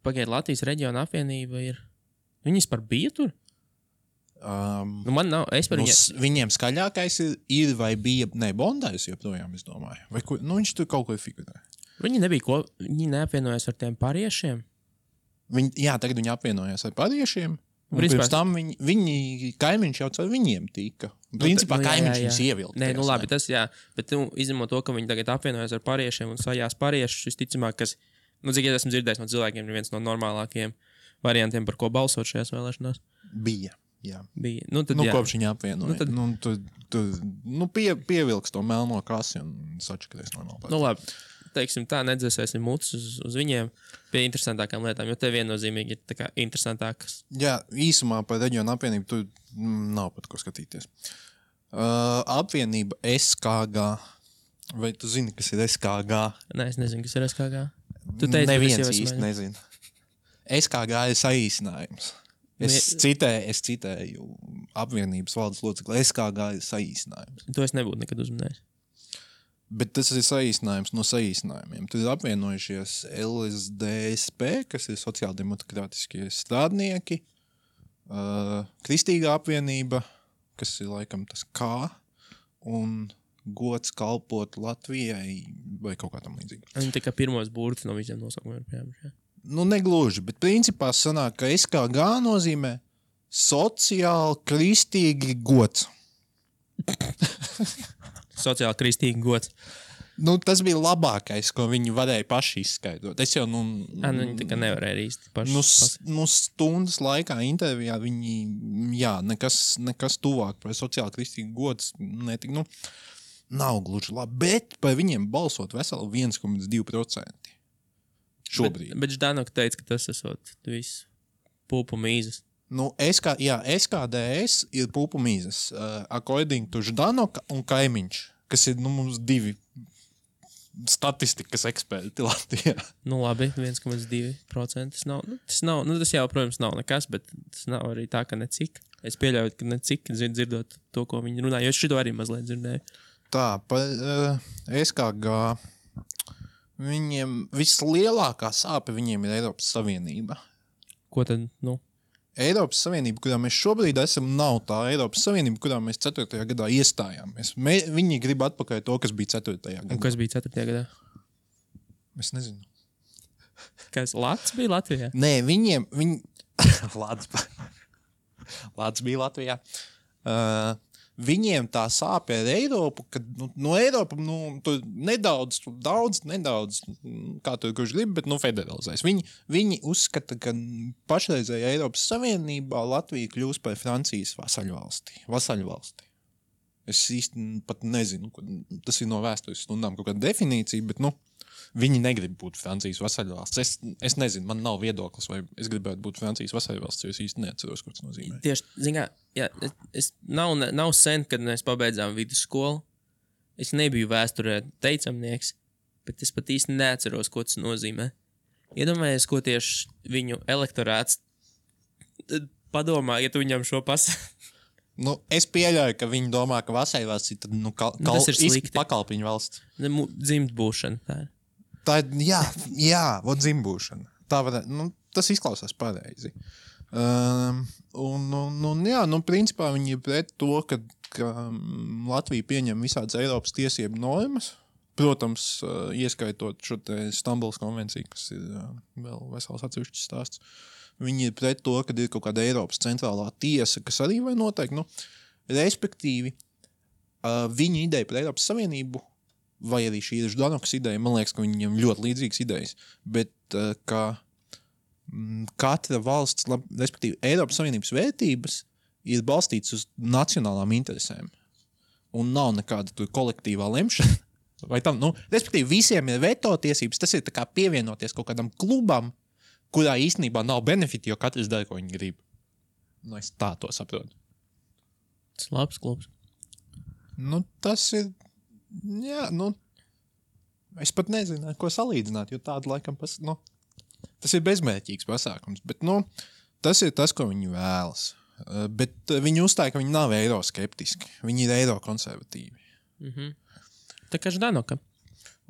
Pagaid, Latvijas reģiona apvienība ir... Viņas par bija tur? Man nav, es par viņiem skaļākais ir vai bija, Bondājs joprojām, es domāju. Vai viņš tur kaut ko figurē. Viņi neapvienojās ar tiem pariešiem? Jā, tagad viņi apvienojās ar pariešiem, Un pirms tam viņi kaimiņš jau caur viņiem tika. Principā kaimiņš viņus ievilka. Nē, labi, tas jā. Bet izņemot to, ka viņi tagad apvienojas ar pāriešiem un sajās pāriešus, visticamāk, kas, cik es esmu dzirdējis no cilvēkiem, ir viens no normālākajiem variantiem, par ko balsot šajās vēlēšanās. Bija. Tad, kopš viņa apvienoja. Pievilks to melno kasi un sačakarēs normāli. Labi, teiksim tā, nedzēsēsim mutus uz viņiem pie interesantākām lietām, jo te viennozīmīgi ir tā kā interesantākas. Jā, īsumā par reģionu apvienību tu nav pat ko skatīties. Apvienība SKG. Vai tu zini, kas ir SKG? Nē, es nezinu, kas ir SKG. Tu teici, neviens īsti nezinu. SKG ir saīsinājums. Es citēju apvienības valdes locekli. SKG ir saīsinājums. To es nebūtu nekad uzminējis. Bet tas ir saīsinājums no saīsinājumiem. Tur ir apvienojušies LSDSP, kas ir sociāldemokrātiskie strādnieki, Kristīgā apvienība, kas ir laikam tas kā, un gods kalpot Latvijai vai kaut kā tam līdzīga. Viņi tā kā pirmos burtus no visiem nosaukumiem ir pieņemši. Negluži, bet principā sanāk, ka SKG nozīmē sociāli kristīgi gods. Sociāli kristīgi gods. Tas bija labākais, ko viņi varēja paši izskaidrot. Es jau, viņi tā kā nevarēja īsti paši. Stundas laikā intervijā viņi, nekas tuvāk par sociāli kristīgi gods netika, nav gluži labi, bet par viņiem balsot veseli 1,2%. Šobrīd. Bet Ždanoka teica, ka tas esot viss pulpu mīzes. SKDS ir pulpu mīzes. According to Ždanoka un kaimiņš, kas ir mums divi statistikas eksperti Latvijā. Labi, 1,2%. Tas jau, protams, nav nekas, bet tas nav arī tā, ka necik. Es pieļauju, ka necik dzirdot to, ko viņi runā, jo es šito arī mazliet dzirdēju. Tā, par SKG viņiem vislielākā sāpe viņiem ir Eiropas Savienība. Ko tad, Eiropas Savienība, kurā mēs šobrīd esam, nav tā Eiropas Savienība, kurā mēs 4. gadā iestājāmies. Viņi grib atpakaļ to, kas bija 4. gadā. Un kas bija 4. gadā? Es nezinu. Kas, Lats bija Latvijā? Nē, Lats bija Latvijā. Viņiem tā sāpe ar Eiropu, kad no Eiropa tur nedaudz, kā tur kurš grib, bet federalizēs. Viņi uzskata, ka pašreizējā Eiropas Savienībā Latvija kļūs par Francijas vasaļvalsti. Es īsti pat nezinu, tas ir no vēstures stundām kaut kāda definīcija, bet viņi negrib būt Francijas vasaļvalsts. Es nezinu, man nav viedoklis, vai es gribētu būt Francijas vasaļvalsts, jo es īsti neatceros, ko tas nozīmē. Tieši, nav sen, kad mēs pabeidzām vidusskolu. Es nebiju vēsturē teicamnieks, bet es pat īsti neatceros, ko tas nozīmē. Iedomājies, ko tieši viņu elektorāts padomā, ja tu viņam šo es pieļauju, ka viņi domā, ka vasaļvalsts ir tas ir slikti. Pakalpiņu valsts. Dzimt būšana, tā ir. Tā ir, dzimbūšana. Tā tas izklausās pareizi. Principā viņi ir pret to, ka Latvija pieņem visādas Eiropas tiesību normas. Protams, ieskaitot šo te Stambulas konvenciju, kas ir vēl vesels atsevišķs stāsts. Viņi ir pret to, ka ir kaut kāda Eiropas centrālā tiesa, kas arī vai noteikti. Respektīvi, viņa ideja par Eiropas Savienību, vai arī šī ir Ždanokas ideja, man liekas, ka viņiem ļoti līdzīgas idejas, bet ka katra valsts, respektīvi Eiropas Savienības vērtības ir balstītas uz nacionālām interesēm. Un nav nekāda tur kolektīvā lemšana. Vai tam, respektīvi visiem ir veto tiesības, tas ir tā kā pievienoties kaut kādam klubam, kurā īstenībā nav benefiti, jo katrs dara, ko viņi grib. Es tā to saprotu. Tas labs klubs. Tas ir es pat nezinu, ko salīdzināt, jo tādu laikam tas ir bezmērķīgs pasākums, bet tas ir tas, ko viņi vēlas. Bet viņi uzstāja, ka viņi nav eiroskeptiski, viņi ir eirokonservatīvi. Mhm. Tā kā Ždanoka.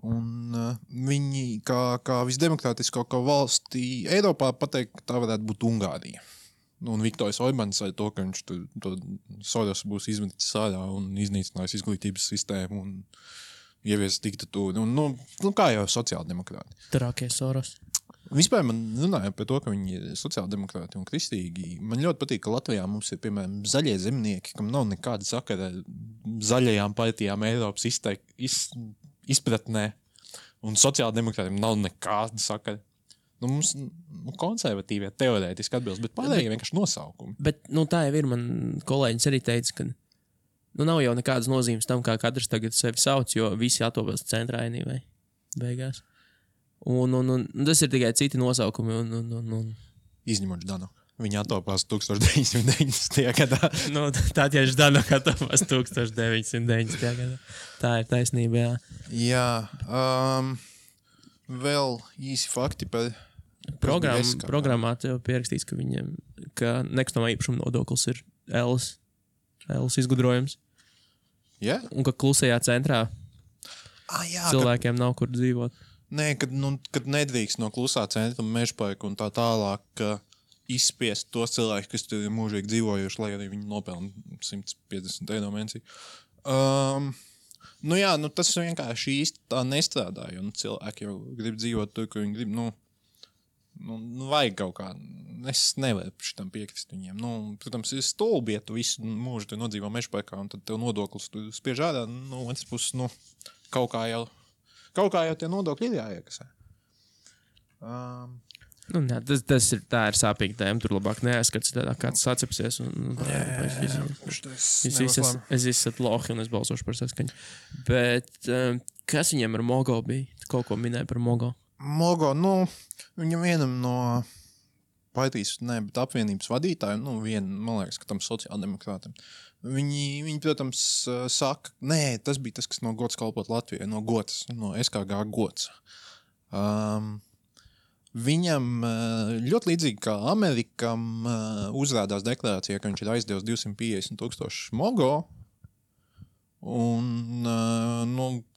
Un viņi, kā visdemokrātiskākā valstī Eiropā, pateikt, ka tā varētu būt Ungārija. Un Viktors Orbāns ar to, ka viņš to Soros būs izmetis ārā un iznīcinājis izglītības sistēmu un ievies diktatūru. Kā jau sociāldemokrāti. Trakie Soros. Vispār man runāja par to, ka viņi ir sociāldemokrāti un kristīgi. Man ļoti patīk, ka Latvijā mums ir, piemēram, zaļie zemnieki, kam nav nekāda sakara zaļajām partijām Eiropas izpratnē. Un sociāldemokrātiem nav nekāda sakara. Mums konservatīvie teorētiski atbilst, bet pārējie vienkārši nosaukumi. Bet tā jau ir. Man kolēģis arī teica, ka nav jau nekādas nozīmes tam, kā katrs tagad sevi sauc, jo visi atopās centrā vai beigās. Un tas ir tikai citi nosaukumi. Izņemot Danu. Viņa atopās 1990. gadā. Tā tieši Danu atopās 1990. gadā. Tā ir taisnība, jā. Jā. Vēl īsi fakti par Programmā tev pierakstīts, ka nekustamā īpašuma nodoklis ir Ēlas izgudrojums. Yeah? Un ka klusajā centrā cilvēkiem nav kur dzīvot. Nē, kad nedrīkst no klusā centra mežparka un tā tālāk izspiest tos cilvēkus, kas tur ir mūžīgi dzīvojuši, lai arī viņi nopelna 150 eiro mēnesī. Tas vienkārši īsti tā nestrādā, jo cilvēki jau grib dzīvot tur, kur viņi grib. Vajag kaut kā. Es nevaru šitam piekrist viņiem. Protams, ir stulbi, ja tu visu mūžu te nodzīvo mežparkā un tad tev nodoklis tu spiež ārā. Otrs puses, kaut kā jau tie nodokļi ir jāiekasē. Tā ir sāpīga tēma. Tur labāk neaizskats, kāds sacepsies. Es esmu lohi un es balsošu par saskaņu. Bet kas viņiem ar Mogo bija? Tu kaut ko minēji par Mogo? Mogo, viņam vienam no partijas, bet apvienības vadītājiem, man liekas, ka tam sociāldemokrātam. Viņi, protams, saka, tas bija tas, kas no gods kalpot Latvijai, no gods, no SKG gods. Viņam ļoti līdzīgi kā Amerikam uzrādās deklarācijā, ka viņš ir aizdevis 250,000 Mogo, un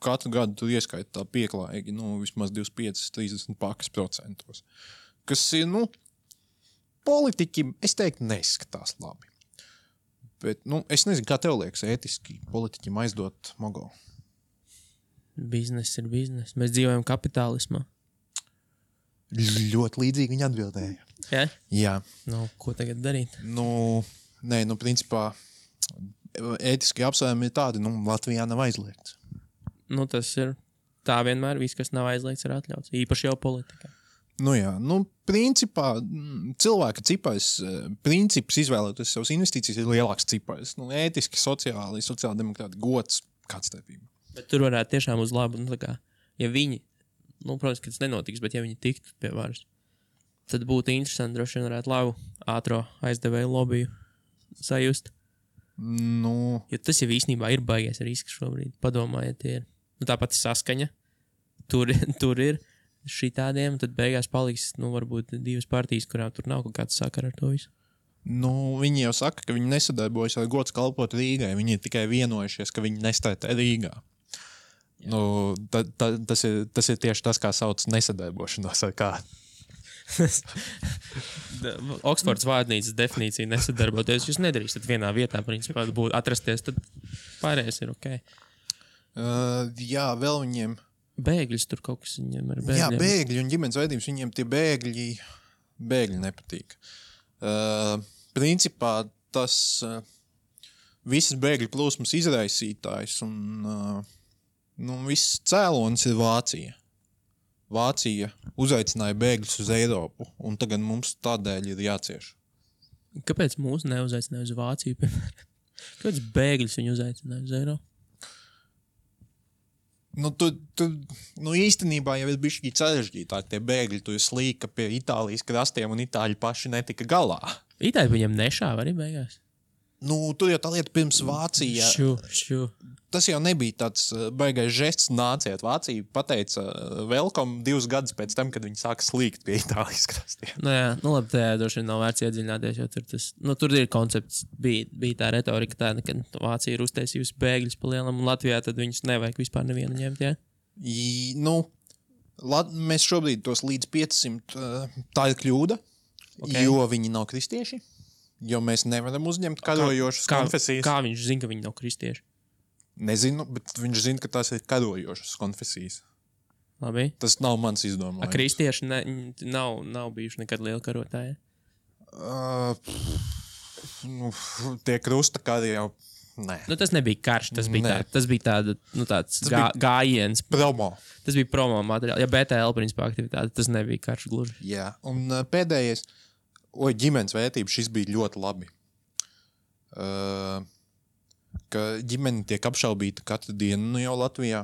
katru gadu tur ieskaita tā pieklājīgi, vismaz 25-30 pakas procentos. Kas ir, politiķi, es teiktu, neskatās labi. Bet, es nezinu, kā tev liekas ētiski politiķim aizdot Mogo. Biznes ir biznes. Mēs dzīvojam kapitālismā. Ļoti līdzīgi viņi atbildēja. Ja? Jā. Ko tagad darīt? Principā, ētiski apsvērumi ir tādi, Latvijā nav aizliegts. Tas ir tā vienmēr, viss, kas nav aizliegts, ir atļauts. Īpaši jau politikā. Principā, cilvēka cipars, princips izvēlēties savas investīcijas ir lielāks cipars. Ētiski, sociāldemokrāti, gods, kāds starpība. Bet tur varētu tiešām uz labu, ja viņi, protams, ka tas nenotiks, bet ja viņi tiktu pie varas, tad būtu interesanti, droši vien varētu labu ātro aizdevēju lobiju sajust. Jo tas jau īstenībā ir baigies risks šobrīd. Padomājiet, tie ir. Tāpat saskaņa. Tur ir šitādiem, tad beigās paliks, varbūt divas partijas, kurām tur nav kaut kāds sakara ar to visu. Viņi jau saka, ka viņi nesadarbojas ar gods kalpot Rīgai. Viņi ir tikai vienojušies, ka viņi nestartē Rīgā. Tas ir tieši tas, kā sauc nesadarbošanos ar kādu. Oksfords vārnīcas definīcija nesadarboties. Jūs nedarīsiet vienā vietā, principā, būtu atrasties, tad pārējais ir ok. Jā, vēl viņiem... Bēgļus tur kaut kas viņiem ar bēgļiem. Jā, bēgļi un ģimenes veidības, viņiem tie bēgļi nepatīk. Principā tas visas bēgļu plūsmas izraisītājs un viss cēlonis ir Vācija. Vācija uzaicināja bēgļus uz Eiropu, un tagad mums tādēļ ir jācieš. Kāpēc mūs neuzaicināja uz Vāciju, piemēram? Kāpēc bēgļus viņi uzaicināja uz Eiropu? Īstenībā jau ir bišķi sarežģītāk. Tie bēgļi tu slīka pie Itālijas krastiem, un Itāļi paši netika galā. Itāļi viņam nešāva arī beigās? Tur jau tā lieta pirms Vācija. Tas jau nebija tāds baigais žests nāciet. Vācija pateica welcome 2 gadus pēc tam, kad viņi sāka slīgt pie Itālijas krastiem. Labi, tajā droši vien nav vērts iedziļināties, jo tur ir koncepts, bija tā retorika tāda, ka Vācija ir uztaisījusi bēgļus pa lielam, un Latvijā tad viņus nevajag vispār nevienu ņemt, jā? Mēs šobrīd tos līdz 500, tā ir kļūda, jo viņi nav kristieši, jo mēs nevaram uzņemt karojošas konfesijas. Kā viņš zina, ka viņi nav kristieši? Nezinu, bet viņš zina, ka tās ir karojošas konfesijas. Labi. Tas nav mans izdomājums. Kristieši nav bijuši nekad lieli karotāji. Tie krusta kari jau. Nē. Nu, tas nebija karš, tas bija tāds gājiens. Promo. Tas bija promo materiāli. Ja BTL principā aktivitāte, tas nebija karš gluži. Jā, un pēdējais, ģimenes vērtība, šis bija ļoti labi. Ka ģimene tiek apšaubīta katru dienu jau Latvijā,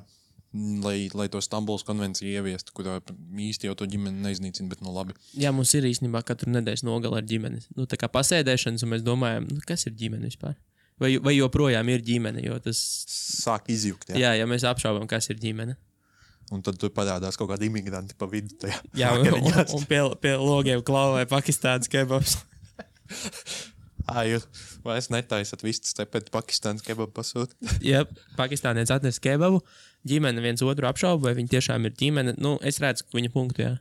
lai to Stambulas konvenciju ieviestu, kurā īsti jau to ģimeni neiznīcina, bet labi. Jā, mums ir īstenībā katru nedēļas nogala ar ģimeni. Tā kā pasēdēšanas, un mēs domājam, kas ir ģimene vispār? Vai joprojām ir ģimene, jo tas... Sāk izjukt, jā. Jā, mēs apšaubām, kas ir ģimene. Un tad tur parādās kaut kādi imigranti pa vidu tajā. Jā, un pie logiem klauvē Pakistānas kebabs. Jūs vairs netaisat vistas te pēc Pakistānas kebabu pasūt. Jā, Pakistānietis atnes kebabu, ģimene viens otru apšauba, vai viņi tiešām ir ģimene. Es redzu, ka viņa punktu, jā.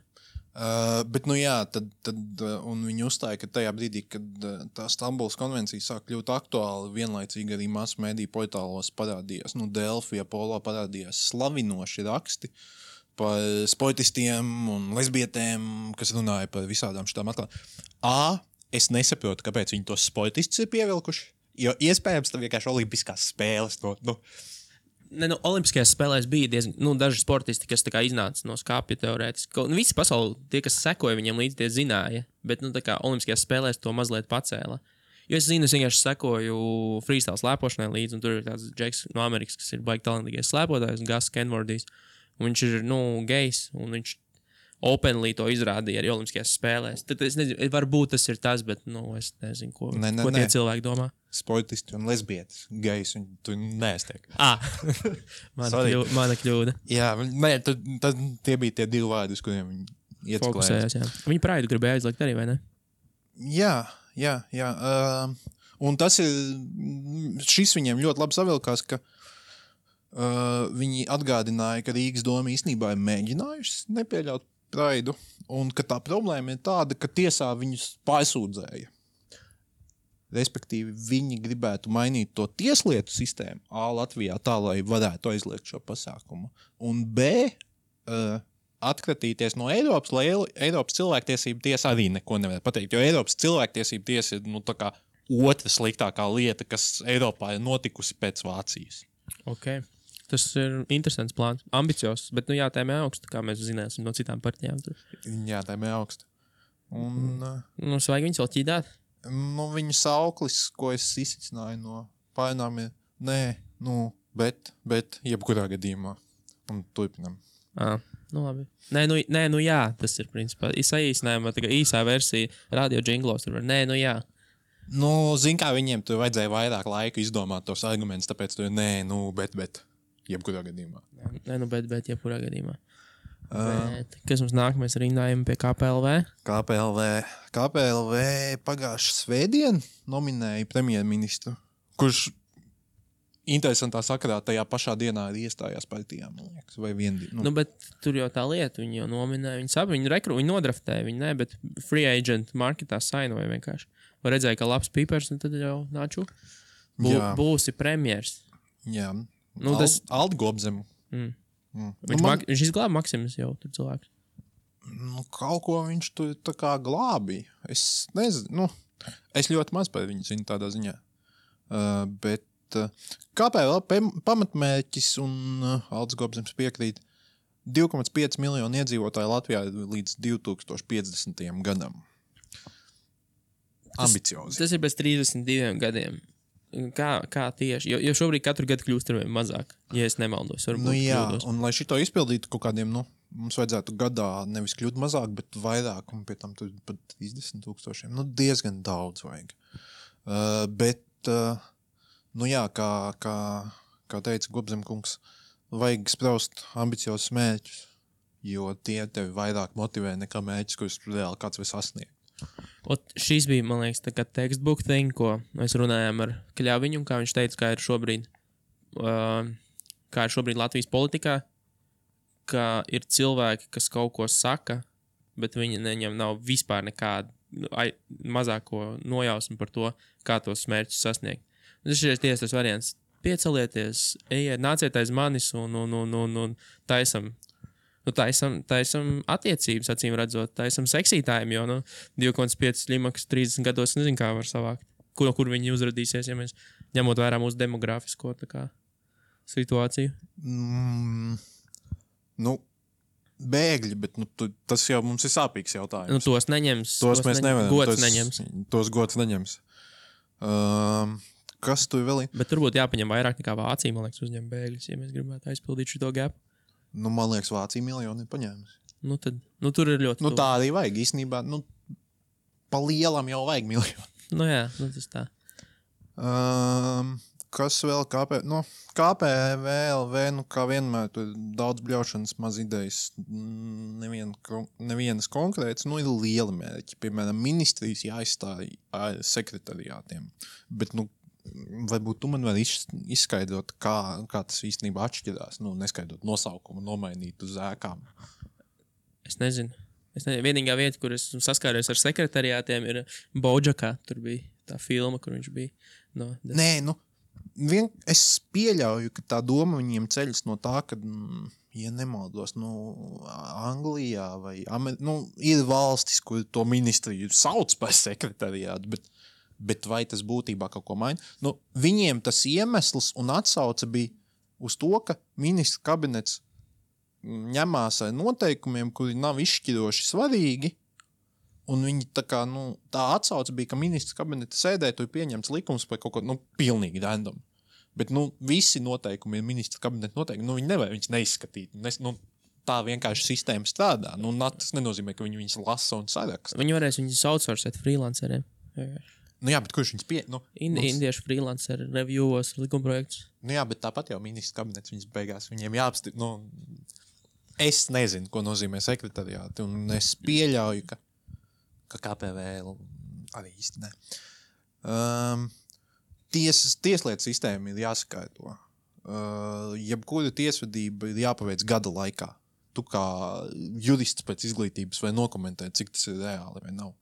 Bet, un viņi uzstāja, ka tajā brīdī, kad tā Stambulas konvencija sāk kļūt aktuāli, vienlaicīgi arī masu mediju portālos parādījās, Delfija, Polo parādījās slavinoši raksti par sportistiem un lesbietēm, kas runāja par visādām šitām atklājumiem. Es nesaprotu, kāpēc viņi tos sportistus ir pievilkuši, jo iespējams tam vienkārši olimpiskās spēles. Olimpiskajās spēlēs bija diezgan daži sportisti, kas iznāca no skāpja teorētiski. Visi pasauli, tie, kas sekoja viņiem līdzi, tie zināja, bet olimpiskajās spēlēs to mazliet pacēla. Jo es vienkārši sekoju freestyle slēpošanai līdzi, un tur ir tāds džeks no Amerikas, kas ir baigi talantīgais slēpotājs, Gus Kenwardijs, un viņš ir, gejs, un viņš openly to izrādīja arī olimpiskajās spēlēs. Tad es nezinu, varbūt tas ir tas, bet, es nezinu, ko tie cilvēki domā. Sportisti un lesbietis, gejs, un tu neestiek. Mana kļūda. Jā, tad tie bija tie divi vārdi, uz kuriem viņi fokusējās, jā. Viņi praidu gribēja aizliegt arī, vai ne? Jā. Un šis viņiem ļoti labi savilkās, ka viņi atgādināja, ka Rīgas doma īstenībā ir mēģinājusi nepieļaut praidu, un ka tā problēma ir tāda, ka tiesā viņus pārsūdzēja. Respektīvi, viņi gribētu mainīt to tieslietu sistēmu Latvijā tā, lai varētu aizliegt šo pasākumu. Un atkratīties no Eiropas, lai Eiropas cilvēktiesība tiesa arī neko nevar pateikt, jo Eiropas cilvēktiesība tiesa ir tā kā otra sliktākā lieta, kas Eiropā ir notikusi pēc Vācijas. Ok. Tas ir interesants plāns, ambiciozs, bet jātēmē augstu, kā mēs zināsim no citām partijām. Jātēmē augstu. Un... Vajag viņus vēl ķīdāt? Viņu sauklis, ko es izsicināju no pārnām, ir bet jebkurā gadījumā. Un turpinam. Labi. Jā, tas ir principā. Saīsinājumā, īsā versija radio džinglos. Jā. Zin kā viņiem tur vajadzēja vairāk laika izdomāt tos argumentus, tāpēc tur bet. Jebkurā gadījumā. Bet jebkurā gadījumā. Kas mums nāk? Mēs rindājam pie KPLV? KPLV pagājušā svētdien nominēja premjerministru, kurš interesantā sakarā tajā pašā dienā arī iestājās partijām, man liekas, vai viendien. Bet tur jau tā lieta, viņi jau nominēja, viņi nodraftēja, viņi ne, bet free agent marketā sainoja vienkārši. Vai redzēja, ka labs pīpers, un tad jau nāču būsi premjers. Jā. Aldi Gobzemu. Viņš izglāba Maksimus jau tur cilvēks. Kaut ko viņš tur tā kā glābīja. Es nezinu. Es ļoti maz par viņu zinu tādā ziņā. Bet KPLV pamatmērķis un Aldis Gobzems piekrīt 2,5 miljonu iedzīvotāju Latvijā līdz 2050. gadam. Ambiciozi. Tas ir bez 32 gadiem. Kā tieši? Jo šobrīd katru gadu kļūst ar vien mazāk, ja es nemaldos. Jā, un lai šito izpildītu kaut kādiem, mums vajadzētu gadā nevis kļūt mazāk, bet vairāk, un pie tam tur pat 30,000. Diezgan daudz vajag. Kā teica Gobzemkungs, vajag spraust ambiciozus mērķus, jo tie tevi vairāk motivē nekā mērķis, kurus reāli kāds var sasniegt. Šis bija, man liekas, tā kā textbook thing, ko mēs runājām ar Kļaviņu, kā viņš teica, kā ir šobrīd Latvijas politikā, ka ir cilvēki, kas kaut ko saka, bet viņiem nav vispār nekāda mazāko nojausmu par to, kā tos mērķus sasniegt. Tas ir tas variants. Piecelieties, ejiet, nāciet aiz manis un taisam Nu, tā esam attiecības, acīm redzot. Tā esam seksītājiem, jo 2,5 slimaks 30 gados nezinu, kā var savākt. Kur viņi uzradīsies, ja mēs ņemot vērā mūsu demografisko situāciju. Bēgļi, bet tas jau mums ir sāpīgs jautājums. Tos neņems. Tos mēs nevaram. Gods neņems. Tos gods neņems. Kas tu vēl ir? Bet tur būtu jāpaņem vairāk nekā Vācija, man liekas, uzņem bēgļus, ja mēs gribētu aizpildīt šo gap. Man liekas, Vācija miljoni ir paņēmusi. Tur ir ļoti. Tā arī vajag īstenībā. Pa lielam jau vajag miljoni. Jā, tas tā. Kas vēl? KPVLV, kā vienmēr, tur daudz bļaušanas, maz idejas, nevienas konkrētas, ir liela mērķi. Piemēram, ministrijas jāizstāj sekretariātiem. Bet, varbūt tu man var izskaidrot, kā tas īstenībā atšķirās, neskaidrot nosaukumu, nomainīt uz ēkām. Es nezinu. Vienīgā vieta, kur es saskāries ar sekretariātiem, ir Bojackā. Tur bija tā filma, kur viņš bija. Es pieļauju, ka tā doma viņiem ceļas no tā, ka, ja nemaldos, Anglijā vai ir valstis, kur to ministriju sauc par sekretariātu, bet vai tas būtībā kaut ko maina? Viņiem tas iemesls un atsauce bija uz to, ka ministra kabinets ņemās ar noteikumiem, kuri nav izšķiroši svarīgi, un viņi tā atsauce bija, ka ministra kabineta sēdē tur pieņemts likums par kaut ko, pilnīgi random. Bet, visi noteikumi ir ministra kabineta noteikumi, viņi nevar viņus neizskatīt. Tā vienkārši sistēma strādā. Tas nenozīmē, ka viņi viņus lasa un saraksta. Viņi varēs viņus outsourcēt freelanceriem. Jā, bet kurš viņus Indiešu freelanceri reviewos likumprojektus. Jā, bet tāpat jau ministra kabinets viņus beigās. Viņiem jāapstiprina. Es nezinu, ko nozīmē sekretariāti, un es pieļauju, ka KPVL arī īsti ne. Tieslietu sistēma ir jāsakārto. Jebkura tiesvedība ir jāpaveic gada laikā. Tu kā jurists pēc izglītības vai nokomentēt, cik tas ir reāli vai nav.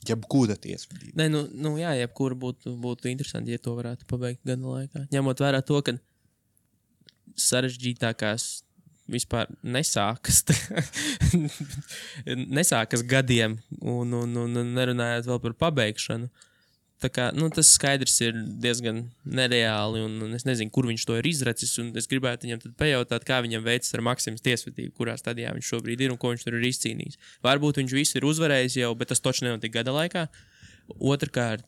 Jebkura tiesvedība. Jā, jebkura būtu interesanti, ja to varētu pabeigt gada laikā. Ņemot vērā to, ka sarežģītākās vispār nesākas gadiem un nerunājot vēl par pabeigšanu. Tā kā, tas skaidrs ir diezgan nereāli un es nezinu, kur viņš to ir izracis un es gribētu viņam tad pajautāt, kā viņam veicas ar Maksimas tiesvedību, kurā stadijā viņš šobrīd ir un ko viņš tur ir izcīnījis. Varbūt viņš visu ir uzvarējis jau, bet tas toči nenotika gada laikā. Otrkārt,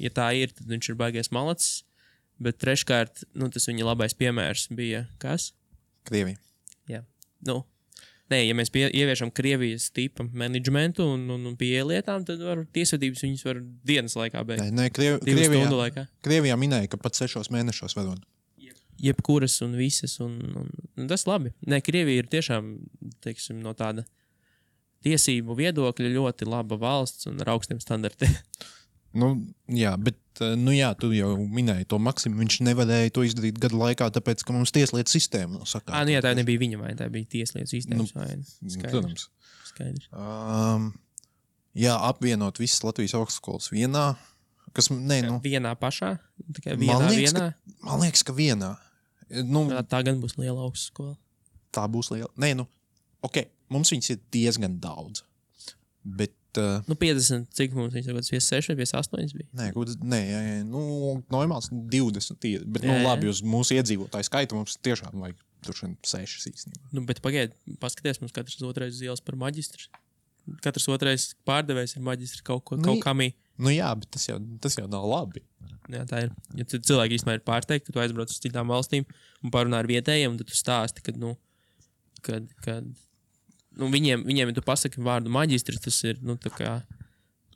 ja tā ir, tad viņš ir baigais malacis. Bet treškārt, tas viņa labais piemērs bija kas? Krievija. Jā. Ja mēs ieviešam Krievijas tipa menedžmentu un pie lietām, tad tiesvedības viņas var dienas laikā beigt. Stundu laikā. Krievijā minēja, ka pat 6 mēnešos varot. Jebkuras un visas. Un tas labi. Krievija ir tiešām, teiksim, no tāda tiesību viedokļa ļoti laba valsts un ar augstiem standartiem. Jā, bet tu jau minēji to Maksimu, viņš nevarēja to izdarīt gada laikā, tāpēc, ka mums tieslietu sistēma nav sakārtota. Tā nebija viņa vaina, tā bija tieslietu sistēmas vaina. Protams. Skaidrs. Apvienot visas Latvijas augstskolas vienā, vienā pašā? Man liekas, ka vienā. Tā gan būs liela augstskola. Tā būs liela. Mums viņas ir diezgan daudz, bet 50, cik mums viņas ir, 56 vai 58 bija? Normāls 20 ir, bet labi, uz mūsu iedzīvotāju skaitu mums tiešām vajag tur 6 īstenībā. Bet paskaties, mums katrs otrais ielas par maģistru. Katrs otrais pārdevējs ir maģistri kaut kamī. Jā, bet tas jau nav labi. Jā, tā ir. Ja cilvēki īstenībā ir pārteikti, ka tu aizbrauc uz citām valstīm un parunā ar vietējiem, tad tu stāsti, kad viņiem tu pasaki vārdu maģistri, tas ir, tā kā,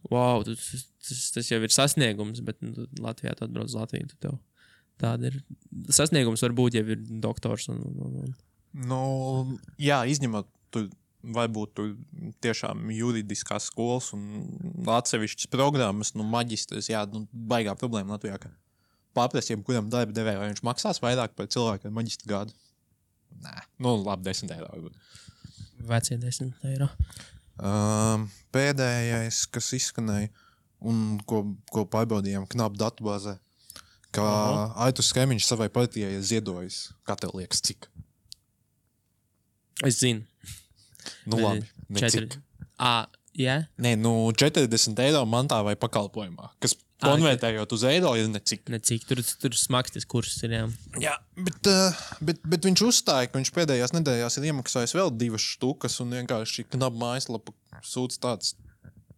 wow, tas jau ir sasniegums, bet Latvijā tu atbrauc uz Latviju, tu tev tāda ir. Sasniegums varbūt jau ir doktors. Jā, izņemot, varbūt tu tiešām juridiskās skolas un atsevišķas programmas, maģistrs, baigā problēma Latvijā, ka pārprasiem, kuram darba devēja, vai viņš maksās vairāk par cilvēku ar maģistra gādu? Nē, labi, 10 eiro varbūt. Vecie 10 eiro. Pēdējais, kas izskanēja un ko pārbaudījām knapu datubāzē, ka Aitus Skemiņš savai partijai ir ziedojis. Kā tev liekas, cik? Es zinu. Nu labi, necik. Jā? Nē, 40 eiro mantā vai pakalpojumā, kas konvertējot uz eiro ir necik. Necik, tur smags tas kurs ir, jā. Jā, bet viņš uzstāja, ka viņš pēdējās nedēļās ir iemaksājis vēl 2 štukas un vienkārši knap mājaslapa sūdz tāds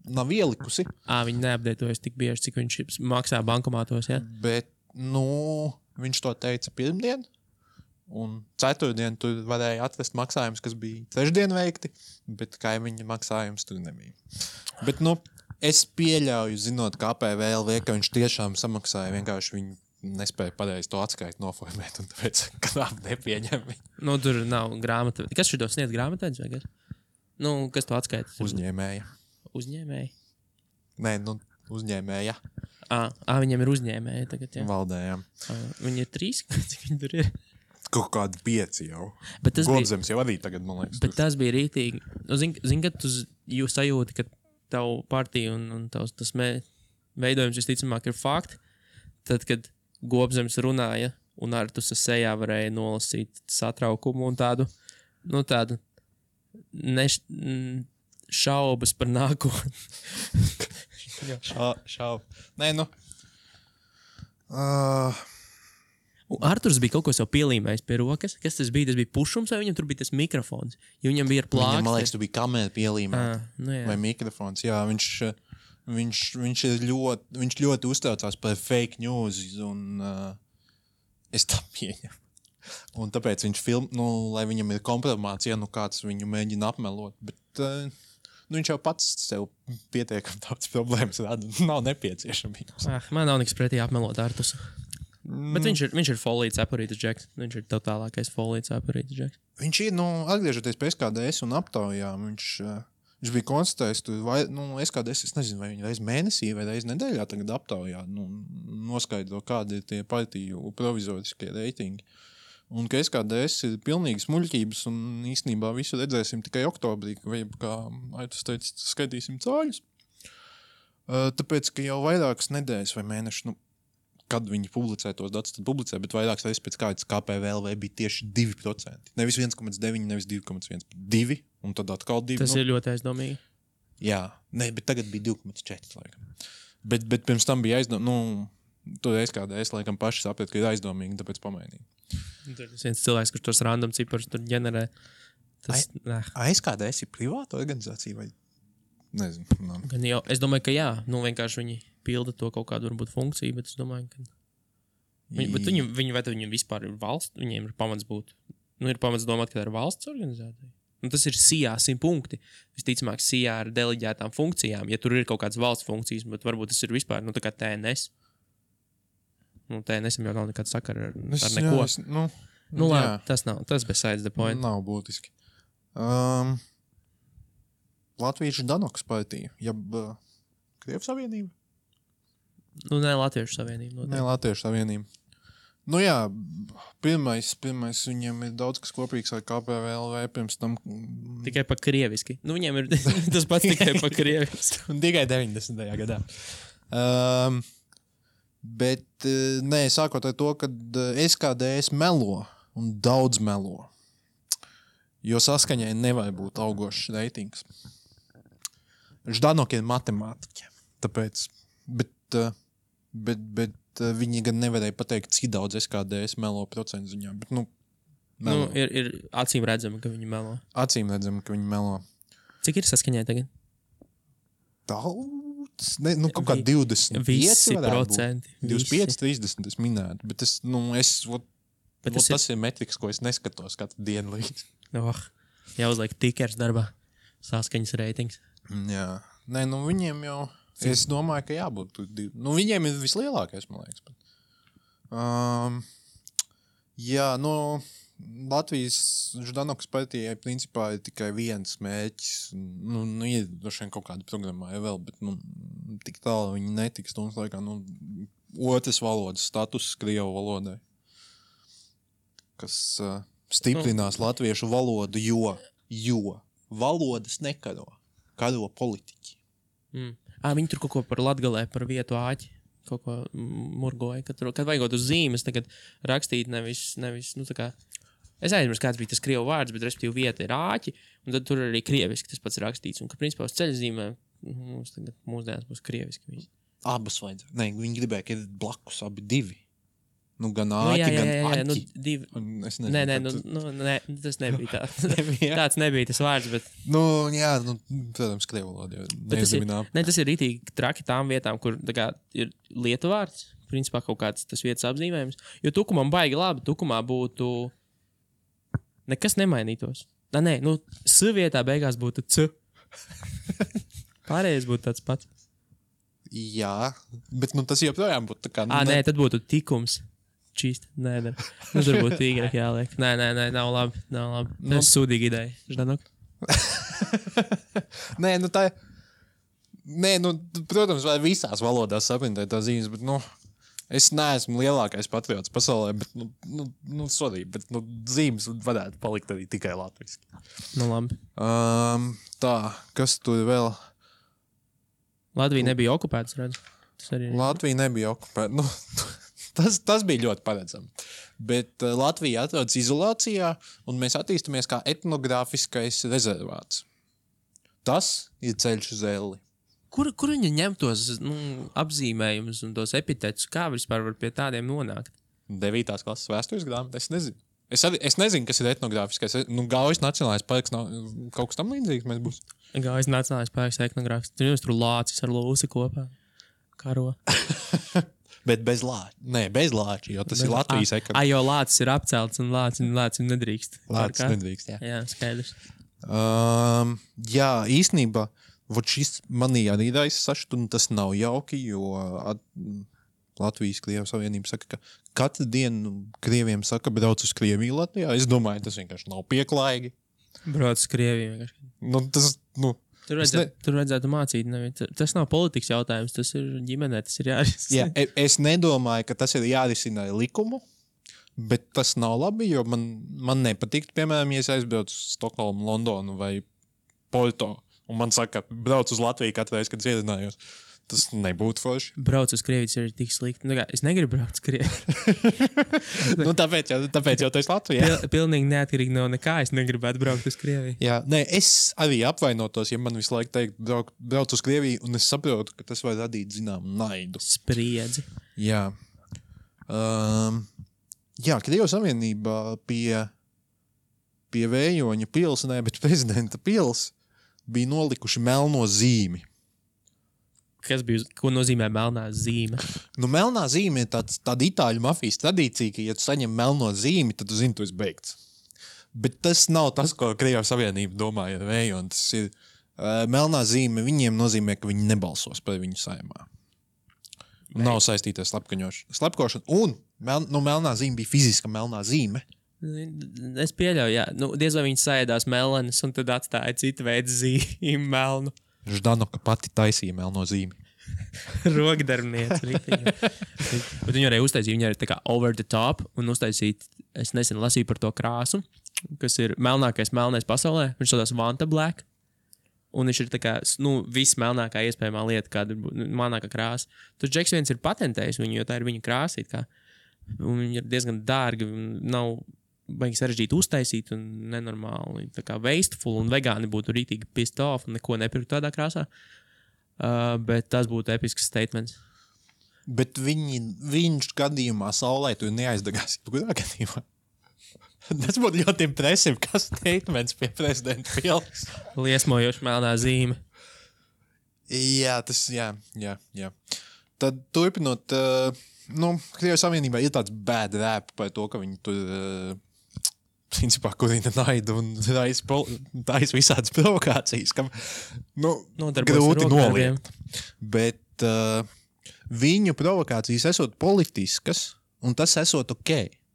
nav ielikusi. Viņi neapdētojas tik bieži, cik viņš maksā bankomātos, jā? Bet, viņš to teica pirmdien, un ceturtdien tur varēja atrast maksājumus, kas bija trešdien veikti, bet kaimiņa maksājums tur nebija. Bet, es pieļauju, zinot, ka APVLV, ka viņš tiešām samaksāja, vienkārši viņi nespēja pareizi to atskaitu noformēt, un tāpēc knap nepieņem viņu. Tur nav grāmata. Kas šito sniedz grāmatēdz vai kas? Kas to atskaita? Uzņēmēja. Uzņēmēji? Nē, uzņēmēja. Viņiem ir uzņēmēji tagad, jā. Valdējām. Viņi ir 3, cik viņi tur ir? Kaut kādi 5 jau. Gobzems jau arī tagad, man liekas. Bet tas bija rītīgi. Zini, kad jūs sajūti, ka tavu partiju un tas veidojums visticamāk ir fakti, tad, kad Gobzems runāja un ar tu sejā varēja nolasīt satraukumu un tādu šaubas par nākotni. Nē, Arturs bija kaut ko sev pielīmējis pie rokas. Kas tas bija? Tas bija pušums vai viņam tur bija tas mikrofons? Jo viņam bija ar plāksti. Viņam, man liekas, tu bija kamera pielīmēta. Vai mikrofons. Jā, viņš ļoti uztraucās par fake news un es tā pieņemu. Un tāpēc viņš lai viņam ir kompromācija, kāds viņu mēģina apmelot. Bet viņš jau pats sev pietiekam tāds problēmas rada. Nav nepieciešamības. Man nav nekas pretī apmelot Artus. Bet viņš ir folīts apurītas džeks. Viņš ir totālākais folīts apurītas džeks. Viņš ir, atgriežoties pie SKDS un aptaujām, viņš bija konstatējis, SKDS, es nezinu, vai viņi reiz mēnesī vai reiz nedēļā tagad aptaujā, noskaidro, kādi ir tie partiju provizoriskie reitingi. Un ka SKDS ir pilnīgi smuļķības un īstenībā visu redzēsim tikai oktobrī, kā Aitus teica, skaitīsim cāļus. Tāpēc, ka jau vairākas nedēļas vai mēnešus, kad viņi publicē tos datus, tad publicē, bet vairākas reizes pēc kādas KPVLV bija tieši 2%. Nevis 1,9, nevis 2,1, 2, un tad atkal 2. Tas ir ļoti aizdomīgi. Jā, bet tagad bija 2,4, laikam. Bet pirms tam bija aizdomīgi, tur SKDS, laikam, paši saprat, ka ir aizdomīgi, tāpēc pamainīja. Tur ir viens cilvēks, kurš tos random ciparus tur ģenerē. SKDS ir privāta organizācija vai? Nezinu. Es domāju, ka jā. Vienkārši viņi pilda to kaut kādu varbūt funkciju, bet es domāju, ka... Bet viņiem vispār ir valsts, viņiem ir pamats būt... ir pamats domāt, ka tā ir valsts organizācija. Tas ir SIA 100 punkti. Visticamāk, SIA ar deleģētām funkcijām. Ja tur ir kaut kādas valsts funkcijas, bet varbūt tas ir vispār, tā kā TNS. TNS jau nav nekāda sakara ar neko. Labi, tas besides the point. Nav būtiski. Latviešu Danoks partija, Krievijas Savienība? Nē, Latviešu Savienība. Nē, Latviešu Savienība. Jā, pirmais viņiem ir daudz kas kopīgs ar KPVLV pirms tam. Tikai pa krieviski. Viņiem ir tas pats tikai pa krieviski. Un tikai 90. gadā. Bet, sākot ar to, ka SKDS melo un daudz melo. Jo saskaņai nevar būt augošs reitings. Ždanok ir matemātiķi, tāpēc, bet viņi gan nevarēja pateikt, cik daudz SKDS melo procentu ziņā, bet, melo. Ir acīm redzama, ka viņi melo. Acīm redzama, ka viņi melo. Cik ir saskaņai tagad? Daudz, kaut kā 25 visi procenti. 25, 30 es minētu, bet tas ir metriks, ko es neskatos katru dienu līdz. Jāuzliek tikers darbā. Saskaņas reitings. Jā. Viņiem jau... Es domāju, ka jābūt... viņiem ir vislielākais, man liekas. Jā, Latvijas Ždanokas partijai principā ir tikai viens mērķis. Ir droši vien kaut kāda programmā vēl, bet tik tālu viņi netiks. Laikā, otras valodas status Krievu valodai. Kas... stiprinās latviešu valodu, jo valodas nekaro. Karo politiķi. Viņi tur kaut ko par Latgalē, par vietu āķi. kaut ko murgoja. Kad vajagot uz zīmes, tagad rakstīt nevis tā kā... Es aizmirsu, kāds bija tas krievu vārds, bet respektīvi vieta ir āķi, un tad tur arī krieviski tas pats rakstīts. Un, ka principā uz ceļzīmē mums tagad mūsdienas būs krieviski visi. Abas vajadzēja. Nē, viņi gribēja, ka ir blakus abi divi. Nu, gan āķi, jā, gan aķi. nu, divi. Es nezinu, Nē, tas nebija tā. Tāds nebija tas vārds, bet... Nu, jā, protams, krievu valoda jau neiezīminā. Tas ir ritīgi traki tām vietām, kur tā kā ir lietu vārds, principā kaut kāds tas vietas apzīmējums. Jo Tukumam baigi labi, Tukumā būtu... Nekas nemainītos. Nē, S vietā beigās būtu C. Pārējais būtu tāds pats. Jā, bet tas joprojām būtu tā kā... Nē, tad būtu tikums. Čīst, nē. Tur būtu tīgrāk jāliek. Nē, nav labi. Tas ir sūdīgi ideja. Ždanok? Nē, tā ir... Nē, protams, vai visās valodās saprintēt tā zīmes, bet, es neesmu lielākais patriots pasaulē, bet, sorry, bet, zīmes varētu palikt arī tikai latviski. Labi. Tā, kas tur vēl? Latvija nebija okupēta, redzu. Latvija nebija okupēta. Tas bija ļoti paredzami. Bet Latvija atrodas izolācijā, un mēs attīstamies kā etnogrāfiskais rezervāts. Tas ir ceļš uz elli. Kur viņi ņem tos apzīmējumus un tos epitetus? Kā vispār var pie tādiem nonākt? 9. klases vēstures grāmata, es nezinu. Es nezinu, kas ir etnogrāfiskais. Gaujas nacionālais parks nav kaut kas tam līdzīgs mēs būs. Gaujas nacionālais parks etnogrāfisks. Tur lācis ar lūsi kopā. Karo. Bet bez lāča. Nē, bez lāča, jo tas ir Latvijas ekonomika. Jo lācis ir apcelts un lācis nedrīkst. Lācis nedrīkst, jā. Jā, skaidrs. Jā, īstenībā, šis manī arī raisa sašutu, un tas nav jauki, jo Latvijas Krievijas Savienība saka, ka katru dienu Krieviem saka, brauc uz Krieviju Latvijā. Es domāju, tas vienkārši nav pieklājīgi. Brauc uz Krieviju vienkārši. Tur vajadzētu mācīt. Tas nav politikas jautājums, tas ir ģimenē, tas ir jārisina. Jā, es nedomāju, ka tas ir jārisina likumu, bet tas nav labi, jo man nepatīk, piemēram, ja es aizbraucu uz Stokholmu, Londonu vai Porto, un man saka, brauc uz Latviju katru reizi, kad iezinājos. Tas nebūtu forši. Brauc uz Krievijas ir tik slikti. Es negribu braukt uz Krieviju. Tāpēc jau tu esi Latvijā. Pilnīgi neatkarīgi no nekā es negribētu braukt uz Krieviju. Jā, es arī apvainotos, ja man visu laiku teikt, brauc uz Krieviju, un es saprotu, ka tas var radīt zināmu naidu. Spriedzi. Jā. Krievijas Savienībā pie Vējoņa pils, bet prezidenta pils bija nolikuši melno zīmi. Ko nozīmē melnā zīme? Melnā zīme ir tāda itāļu mafijas tradīcija, ka, ja tu saņem melno zīmi, tad tu zini, tu esi beigts. Bet tas nav tas, ko Krievijas Savienība domāja ar Vējonu. Tas ir melnā zīme, viņiem nozīmē, ka viņi nebalsos par viņu saimā. Nav saistīta ar slepkošanu. Un melnā zīme bija fiziska melnā zīme. Es pieļauju, jā. Diez vai viņi saēdās melenes un tad atstāja citu veidu zīmi melnu. Ždanoka pati taisīja melno zīmi. Rokdarbniece. Bet viņi arī uztaisīja, viņi arī tā kā over the top un uztaisīja, es nesen lasīju par to krāsu, kas ir melnākais melnais pasaulē. Viņš saucās Vanta Black. Un viņš ir tā kā, viss melnākā iespējamā lieta, kāda ir melnākā krāsa. Tur Džeks viens ir patentējis viņu, jo tā ir viņa krāsa. Un viņi ir diezgan dārgi, nav baigi sarežģīti uztaisīt un nenormāli. Tā kā wasteful un vegāni būtu rītīgi pissed off un neko nepirkt tādā krāsā. Bet tas būtu episks statements. Bet viņš gadījumā saulē tu neaizdegās. Kurā gadījumā? Tas būtu ļoti impresīvi, kas statements pie prezidenta pils. Liesmojoši melnā zīme. Jā, Tad turpinot, Krievijas Savienībā ir tāds bad rap par to, ka viņi tur principā kurina naidu un taisa visādas provokācijas, kam grūti noliegt. Bet viņu provokācijas esot politiskas, un tas esot ok.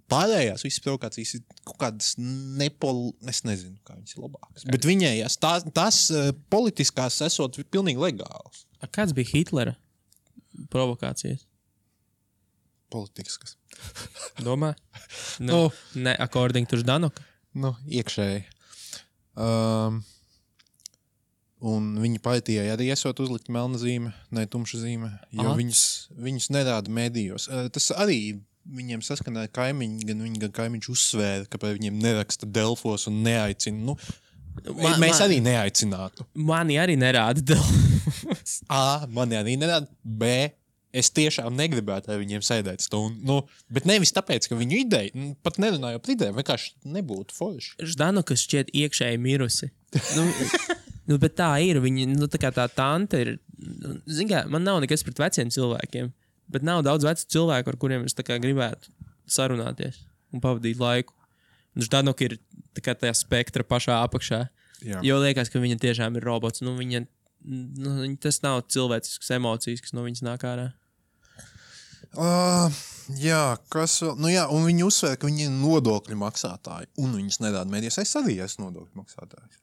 Pārējās visas provokācijas ir kaut kādas es nezinu, kā viņas ir labākas. Bet viņējās, tās politiskās esot pilnīgi legālas. Kāds bija Hitlera provokācijas? Politiskas. Domā? Ne, according to Ždanoka? Iekšēji. Un viņa partijai arī esot uzlikt melna zīme, ne tumša zīme, jo viņas nerāda medijos. Tas arī viņiem saskanēja kaimiņi, gan viņi, gan kaimiņš uzsvēra, ka par viņiem neraksta Delfos un neaicina. Mēs arī neaicinātu. Mani arī nerāda Delfos. Mani arī nerāda. B. Es tiešām negribētu ar viņiem sēdēt stundu. Bet nevis tāpēc, ka viņu ideja, pat nerunāju par idejām, vienkārši nebūtu forši. Ždanuka šķiet iekšēji mirusi. Bet tā ir. Viņa, tā kā tā tante ir. Zin kā, man nav nekas pret veciem cilvēkiem, bet nav daudz vecu cilvēku, ar kuriem es tā kā gribētu sarunāties un pavadīt laiku. Un Ždanuka ir tā kā tajā spektra pašā apakšā. Jā. Jo liekas, ka viņa tiešām ir robots. Viņa tas nav cilvēcisks emocijas, kas no viņas nāk ārā. Kas vēl? Un viņi uzsver, ka viņi ir nodokļu maksātāji, un viņas nedāda medijas. Es arī esmu nodokļu maksātājs.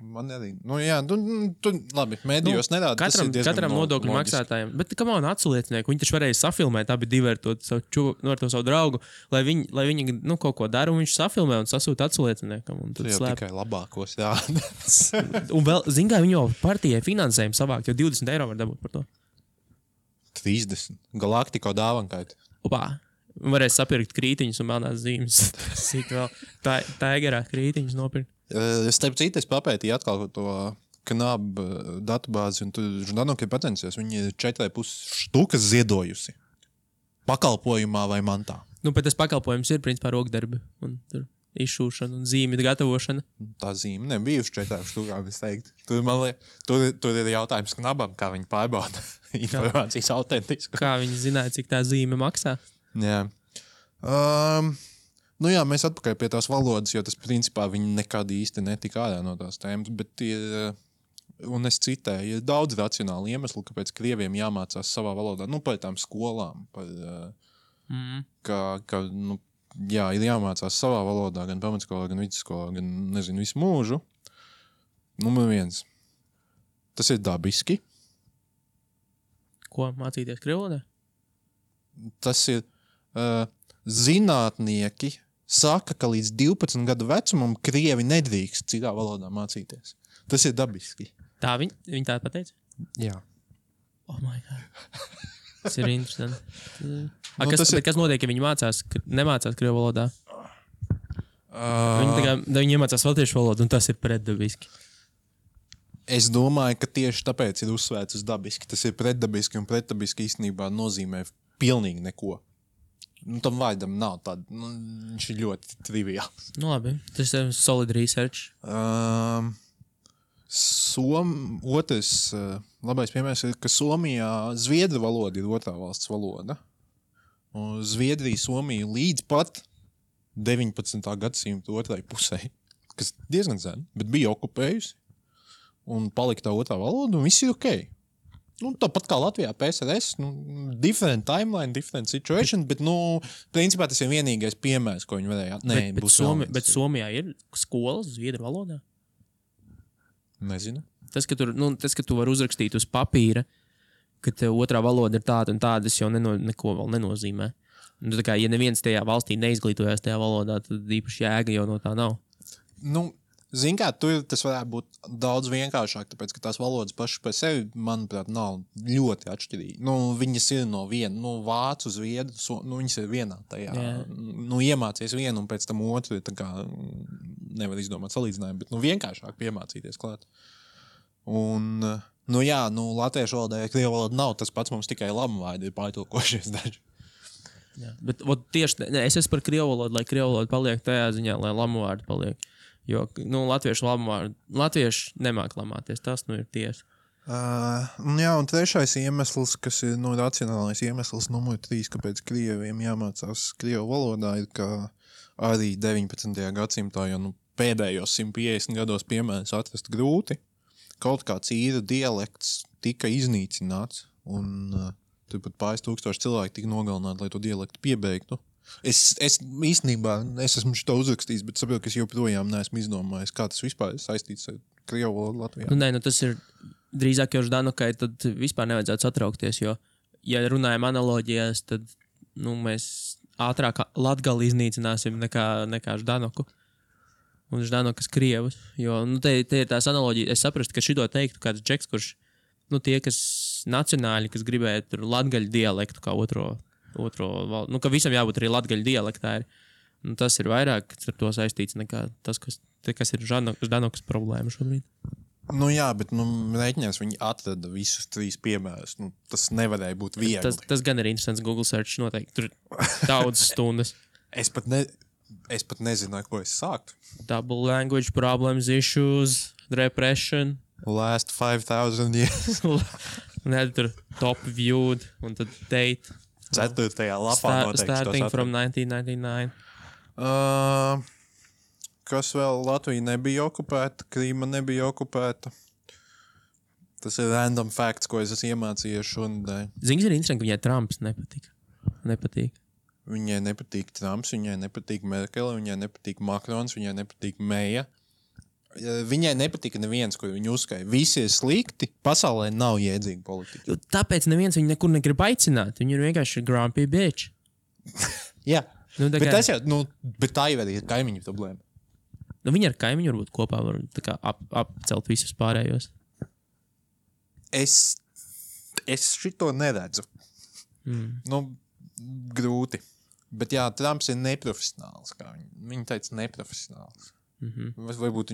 Man arī. Labi, medijos nedāda. Katram nodokļu maksātājiem. Bet kam man atsliecinieku? Viņi taču varēja safilmēt, abi divi ar to savu draugu, lai viņi kaut ko dara, un viņš safilmē un sasūta atslieciniekam. Tu jau tikai labākos rādās. Un vēl, zin kā, viņi jau partijai finansējumu savākt, jo 20 eiro var dabūt par to. 30. Galaktiko dāvankaiti. Varēs sapirkt krītiņus un melnās zīmes. Sīk vēl. Taigerā krītiņus nopirkt. Starp citu, es papētīju atkal to KNAB datubāzi, un tur Ždanuka ir patencies. Viņi ir 4,5 štukas ziedojusi. Pakalpojumā vai mantā. Bet tas pakalpojums ir principā rokdarbi. Un tur izšūšana un zīmju gatavošana. Tā zīme nebija uz 4 štukām, es teiktu. Tur ir jautājums KNABam, kā viņi pārbauda informācijas autentisku. Kā viņi zināja, cik tā zīme maksā? Jā. Mēs atpakaļ pie tās valodas, jo tas principā viņi nekad īsti netika ārā no tās tēmas, bet ir, un es citēju, ir daudz racionāli iemesli, kāpēc krieviem jāmācās savā valodā, par tām skolām, ir jāmācās savā valodā, gan pamatskolā, gan vidusskolā, gan, visu mūžu. Numur 1. Tas ir dabiski. Ko, mācīties krievu valodā? Tas ir zinātnieki saka, ka līdz 12 gadu vecumam krievi nedrīkst citā valodā mācīties. Tas ir dabiski. Tā viņi tā pateica? Jā. Oh my God. Tas ir interesanti. Kas notiek, ja viņi nemācās krievu valodā? Viņi iemācās latviešu valodu, un tas ir pretdabiski. Es domāju, ka tieši tāpēc ir uzsvērts uz dabiski. Tas ir pretdabiski, un pretdabiski īstenībā nozīmē pilnīgi neko. Tam vārdam nav tāda, viņš ir ļoti triviāls. Labi, tas ir solid research. Otrs labais piemērs ir, ka Somijā zviedru valoda ir otrā valsts valoda. Un Zviedrija, Somija līdz pat 19. gadsimta otrai pusē, kas diezgan sen, bet bija okupējusi un palika tā otrā valoda, un viss ir okei. Tāpat kā Latvijā PSRS, different timeline, different situation, bet, principā tas ir vienīgais piemērs, ko viņi varēja. Bet Somijā ir skolas zviedru valodā? Nezinu. Tas, ka tu vari uzrakstīt uz papīra, ka tev otrā valoda ir tāda un tāda, tas jau neko vēl nenozīmē. Tā kā, ja neviens tajā valstī neizglītojās tajā valodā, tad īpaši jēga jau no tā nav. Zin kā, tur tas varētu būt daudz vienkāršāk, tāpēc, ka tās valodas pašas par sevi, manuprāt, nav ļoti atšķirīgi. Viņas ir no viena, vācu, zviedru, viņas ir vienā tajā. Iemācies vienu un pēc tam otru, tā kā nevar izdomāt salīdzinājumu, bet vienkāršāk piemācīties klāt. Un, latviešu valodā, ja krievu valoda nav, tas pats mums tikai lamu vārdi ir pārtulkošies daži. Jā, bet tieši, es esmu par krievu valodu, lai krievu valoda paliek tajā ziņā, lai lamu vārdi paliek. Jo, latvieši nemāk lamāties, tas ir tiesa. Un trešais iemesls, kas ir racionālais iemesls numur 3, kāpēc krieviem jāmācās krievu valodā, ir, ka arī 19. gadsimtā, jo pēdējos 150 gados piemērs atrast grūti, kaut kāds īru dialekts tika iznīcināts, un turpat pāris tūkstoši cilvēki tika nogalināti, lai to dialektu piebeigtu. Es īstenībā, es esmu šito uzrakstījis, bet saprotu, ka es joprojām neesmu izdomājis, kā tas vispār ir saistīts ar krievu valodu Latvijā. Tas ir drīzāk jau Ždanukai, tad vispār nevajadzētu satraukties, jo, ja runājam analoģijās, tad, mēs ātrāk Latgali iznīcināsim nekā Ždanuku. un Ždanokas Krievus. Jo, nu, te ir tās analoģijas. Es saprastu, ka šito teiktu kāds džeks, kurš, nu, tie, kas nacionāļi, kas gribēja tur latgaļu dialektu kā otro valdu. Nu, ka visam jābūt arī latgaļu dialektā. Nu, tas ir vairāk ar to saistīts nekā tas, kas ir Ždanokas problēma šobrīd. Nu jā, bet rēķinās viņi atrada visus 3 piemērus. Nu, tas nevarēja būt viegli. Tas gan ir interesants Google search noteikti. Tur daudz stundas. Es pat nezinu, ar ko es sāktu. Double language problems, issues, repression. Last 5,000 years. Un tur top viewed un tad date. 4. lapā noteikti. Starting from 1999. Kas vēl? Latvija nebija okupēta, Krīma nebija okupēta. Tas ir random facts, ko es esmu iemācījies šonadēļ. Zini, ir interesanti, ka viņai Trumps nepatīk. Viņai nepatīk Trumps, viņai nepatīk Merkele, viņai nepatīk Makrons, viņai nepatīk Meija. Viņai nepatika neviens, ko viņa uzskaita. Visi ir slikti, pasaulē nav jēdzīga politika. Jo tāpēc neviens viņu nekur negrib aicināt. Viņa ir vienkārši grumpy bitch. Jā, Nu, bet tas jau, bet tā jau arī ir kaimiņu problēma. Nu, viņi ar kaimiņu varbūt kopā var tā kā apcelt visus pārējos. Es šito neredzu. Nu, grūti. Bet jā, Trumps ir neprofesionāls. Viņi teica neprofesionāls. Varbūt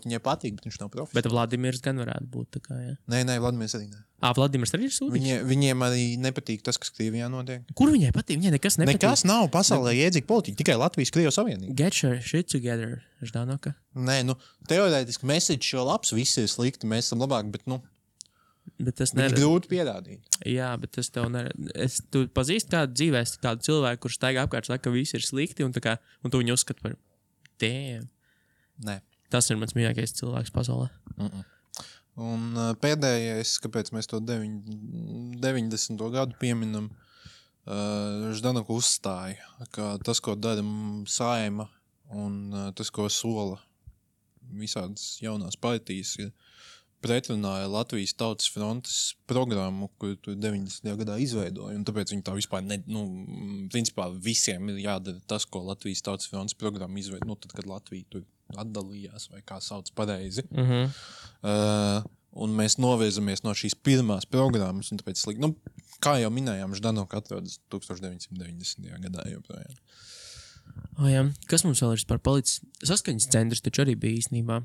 viņai patīk, bet viņš nav profesionāls. Bet Vladimirs gan varētu būt tā kā, jā. Nē, Vladimirs arī ne. Vladimirs arī ir sūdīgs? Viņiem arī nepatīk tas, kas Krievijā notiek. Kur viņai patīk? Viņai nekas nepatīk. Nekas nav pasaulē jēdzīga politika, tikai Latvijas-Krievijas savienība. Get your shit together, Ždanoka. Nē, teorētiski message šo labs, visi ir slikti, mēs esam labāk, bet, Bet tas viņš grūti pierādīt. Jā, bet tas tev tu pazīsti kādu dzīvēs, kādu cilvēku, kurš staigā apkārt saka, ka visi ir slikti, un tu viņu uzskati par damn. Nē. Tas ir mans mīļākais cilvēks pasaulē. Un pēdējais, kāpēc mēs to 90. gadu pieminam, Ždanoka uzstāja, ka tas, ko dara Saeima un tas, ko sola visādas jaunās partijas, ir pretrunāja Latvijas Tautas frontes programmu, kuru tu 90. gadā izveidoja, un tāpēc viņi tā vispār principā visiem ir jādara tas, ko Latvijas Tautas frontes programma izveidoja, tad, kad Latvija tur atdalījās, vai kā sauc pareizi. Un mēs novirzamies no šīs pirmās programmas, un tāpēc, kā jau minējām, Ždanoka atrodas 1990. gadā joprojām. Jā. Kas mums vēl ir par palicis? Saskaņas centrs taču arī bija īstenībā.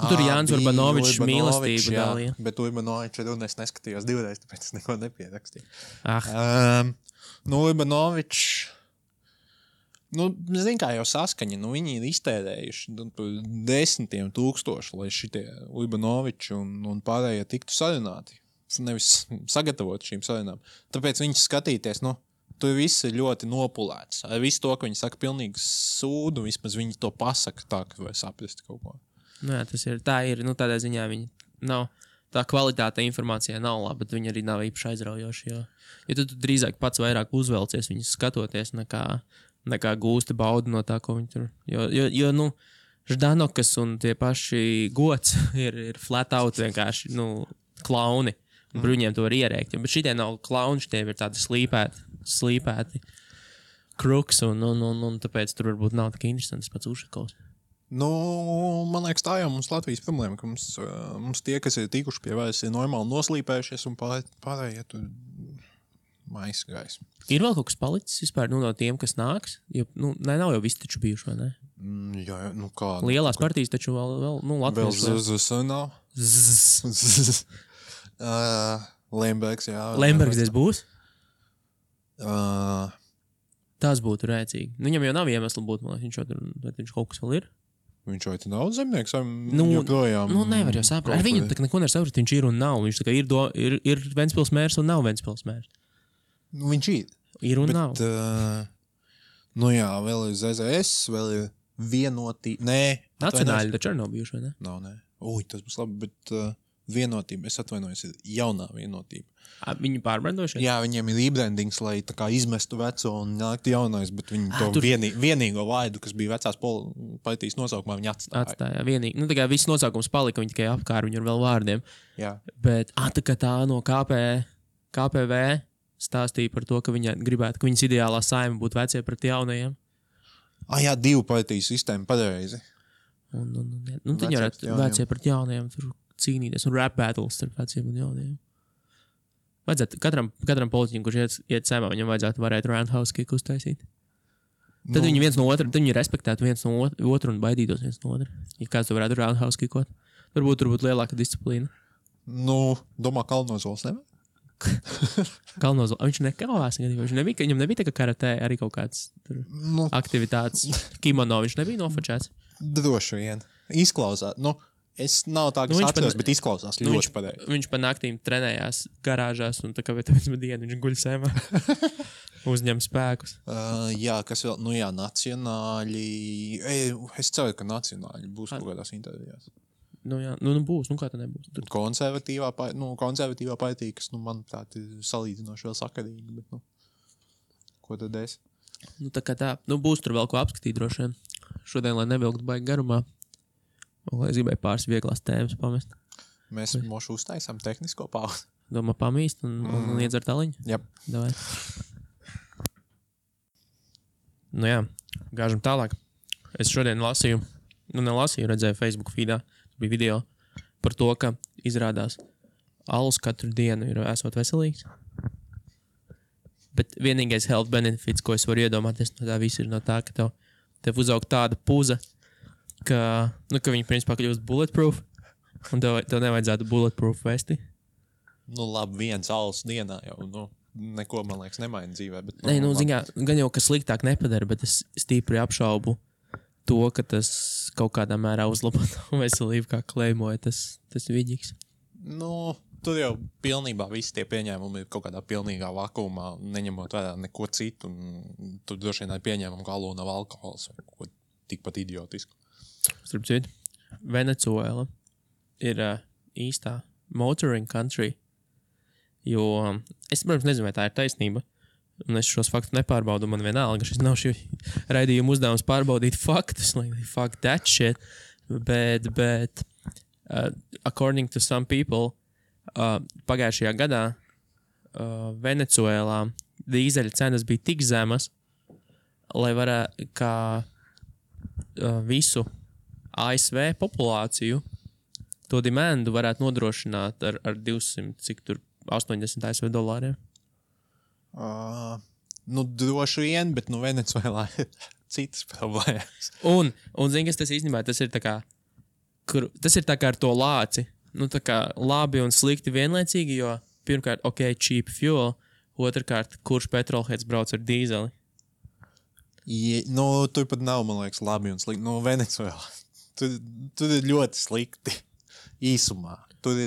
Tur Jānis Urbanovičs mīlestību dalīja. Bet Urbanovičs runu es neskatījos 2 reizes, tāpēc es neko nepierakstīju. Urbanovičs, zin kā jau saskaņa, viņi ir iztērējuši 10 000, lai šitie Urbanoviči un pārējie tiktu sarunāti. Nevis sagatavot šīm sarunām. Tāpēc viņus skatīties, tur viss ir ļoti nopulēts. Ar visu to, ka viņi saka pilnīgi sūdu, vismaz viņi to pasaka tā, ka var saprast kaut ko. Jā, tas ir. Tā ir. Tādā ziņā viņi nav. Tā kvalitāte informācijā nav laba, bet viņi arī nav īpaši aizraujoši. Jo tu drīzāk pats vairāk uzvelcies viņus skatoties, nekā gūsti baudu no tā, ko viņi tur. Jo Ždanokas un tie paši Gods ir flat out vienkārši, klauni. Bruņiem to var ierēkt. Bet šitie nav klauni, šitie ir tādi slīpēti kruks, un tāpēc tur varbūt nav tik interesants pats Ušakovs. Man liekas, tā jau mums Latvijas problēma, ka mums tie, kas ir tikuši pie varas, ir normāli noslīpējušies, un pārējie tur maisgājis. Ir vēl kaut kas palicis vispār no tiem, kas nāks? Jo, nav jau visi taču bijuši, vai ne? Jā, kā? Lielās partijas taču vēl Latvijas. Vēl ZZS nav? Lembergs, jā. Lembergs būs? Tas būtu rēcīgi. Viņam jau nav iemesli būt, man liekas, viņš kaut kas vēl ir. Viņš vai te nav zemnieks, vai joprojām? Nevar jau saprast. Ar viņu neko nevar saprast, viņš ir un nav. Viņš tā kā ir Ventspils mērs un nav Ventspils mērs. Viņš ir. Ir un nav. Jā, vēl ir ZZS, vēl ir vienotība. Nē. Nacionāļi taču arī nav bijuši, vai ne? Nav, nē. Tas būs labi, bet vienotība, es atvainojos, ir jaunā vienotība. Viņi pārbrandojušies? Jā, viņiem ir rebrandings, lai tā kā izmestu veco un nāktu jaunais, bet viņi to vienīgo vaidu, kas bija vecās partijas nosaukumā, viņi atstāja. Vienīgi. Tā kā viss nosaukums palika, viņi tikai apkār viņu ar vēl vārdiem. Jā. Bet tā kā tā no KPV stāstīja par to, ka viņa gribētu, ka viņas ideālā saima būtu vecie pret jaunajiem. Jā, 2 partiju sistēma pareizi. Nu, tad varētu vecie pret jaunajiem tur cīnīties un rap battles starp veciem un jaunajiem. Vajadzētu katram politiķim, kurš iet saimā, viņam vajadzētu varēt roundhouse kick uztaisīt. Tad viņi viens no otra, tad viņi respektētu viens no otru un baidītos viens no otra. Ja kāds to varētu roundhouse kickot, varbūt tur būtu lielāka disciplīna. Nu, domā, Kalnozols nevajag? Kalnozols, viņš nekāvās, viņam nebija tā kā karatē arī kaut kāds aktivitātes. Kimono viņš nebija nofočēts. Droši vien. Izklausās. Es nav tā, kas atceros, bet izklausās ļoti pareizi. Viņš pa naktīm trenējās garāžās un tā kā viens dienu viņš guļ sēmā. Uzņem spēkus. Jā, kas vēl? Nacionāļi. Es ceru, ka nacionāļi būs kaut kādās intervijās. Jā, būs, kā tā nebūs. Konservatīvā partija, kas, manuprāt, ir salīdzinoši vēl sakarīgi, bet, ko tad es? Tā kā tā, būs tur vēl ko apskatīt droši vien. Šodien, lai nevilktu baigi garumā, es gribēju pāris vieglās tēmas pamest. Mēs mošu uztaisām tehnisko pauzi. Domā pamīst un iedzert aliņu? Jep. Davai. Jā, gāžam tālāk. Es šodien redzēju Facebook feedā, bija video par to, ka izrādās alus katru dienu ir esot veselīgs. Bet vienīgais health benefits, ko es varu iedomāties no tā visu, ir no tā, ka tev uzaug tāda puza, ka viņi principā kļūst bulletproof, un tev nevajadzētu bulletproof vesti. Labi, viens alus dienā jau, neko, man liekas, nemaina dzīvē. Bet, gan jau, ka sliktāk nepadara, bet es stīpri apšaubu to, ka tas kaut kādā mērā uzlabo veselību, kā klejmoja tas viģiks. Tur jau pilnībā visi tie pieņēmumi ir kaut kādā pilnīgā vakumā, neņemot vērā neko citu, un tur droši vien pieņēmumi, ka alū nav alkohols vai ko tikpat idiotisku. Starp citu, Venecuēla ir īstā motoring country, jo es, protams, nezinu, vai tā ir taisnība, un es šos faktus nepārbaudu, man vienalga, šis nav šī raidījuma uzdevums pārbaudīt faktus, like fuck that shit, bet according to some people, pagājušajā gadā Venecuēlā dīzeļa cenas bija tik zemas, lai varētu kā visu ASV populāciju to demandu varētu nodrošināt ar 200, cik tur 80 ASV dolāriem. Droši vien, bet Venecuēlā ir citas problēmas. Un zini, kas tas īstenībā, tas ir tā kā ar to lāci. Tā kā labi un slikti vienlaicīgi, jo pirmkārt, cheap fuel, otrkārt, kurš petrolheads brauc ar dīzeli? Tur pat nav, man liekas, labi un slikti. Venecuēlā. Tur ir ļoti slikti īsumā. Tur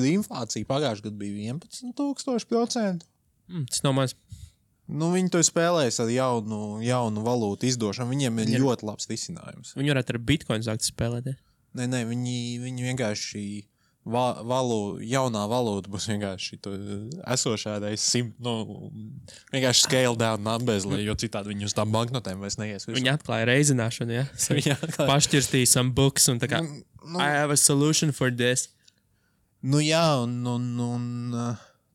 inflācija pagājušajā gadā bija 11,000%. Tas nav maz. Viņi to spēlēs ar jaunu valūtu izdošanu. Viņiem ir ļoti labs risinājums. Viņi varētu ar bitcoin sākt spēlēt. Nē, viņi vienkārši jaunā valūta būs vienkārši esošā reiz vienkārši scale down numbers, jo citādi viņi uz tām banknotēm vairs neies. Viņi atklāja reizināšanu, ja? Pašķirstīja some books un tā kā I have a solution for this.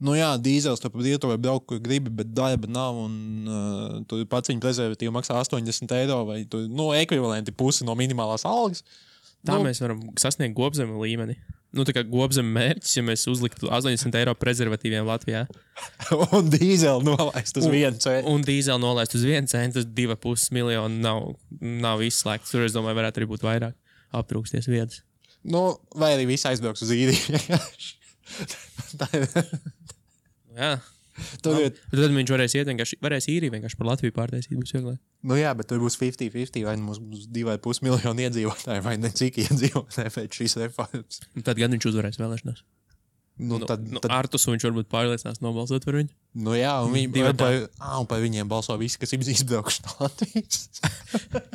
Jā, dīzels tu pa brīvto var braukt, kur gribi, bet darba nav, un tu pats viņa prezervatīvu maksā 80 eiro, vai tu, ekvivalenti pusi no minimālās algas. Tā mēs varam sasniegt gobzemu līmeni. Tā kā gobzemu mērķis, ja mēs uzliktu 80 eiro prezervatīviem Latvijā. Un dīzeli nolaist uz 1 centu. Un dīzeli nolaist uz 1 centu, 2,5 miljonu nav izslēgts. Tur, es domāju, varētu arī būt vairāk aptrūksties vietas. Vai arī visi aizbrauks uz īriju. Jā. Tad viņš varēs īriju vienkārši par Latviju pārtaisīt. Būs vieglāk. Jā, bet tur būs 50-50, vai mums būs 2,5 miljoni iedzīvotāji, vai ne cik iedzīvotāji pēc šīs reformas. Tad gan viņš uzvarēs vēlēšanās. Artus viņš varbūt pārliecinās nobalsot par viņu. Jā, un par viņiem balso visi, kas izbraukšu no Latvijas.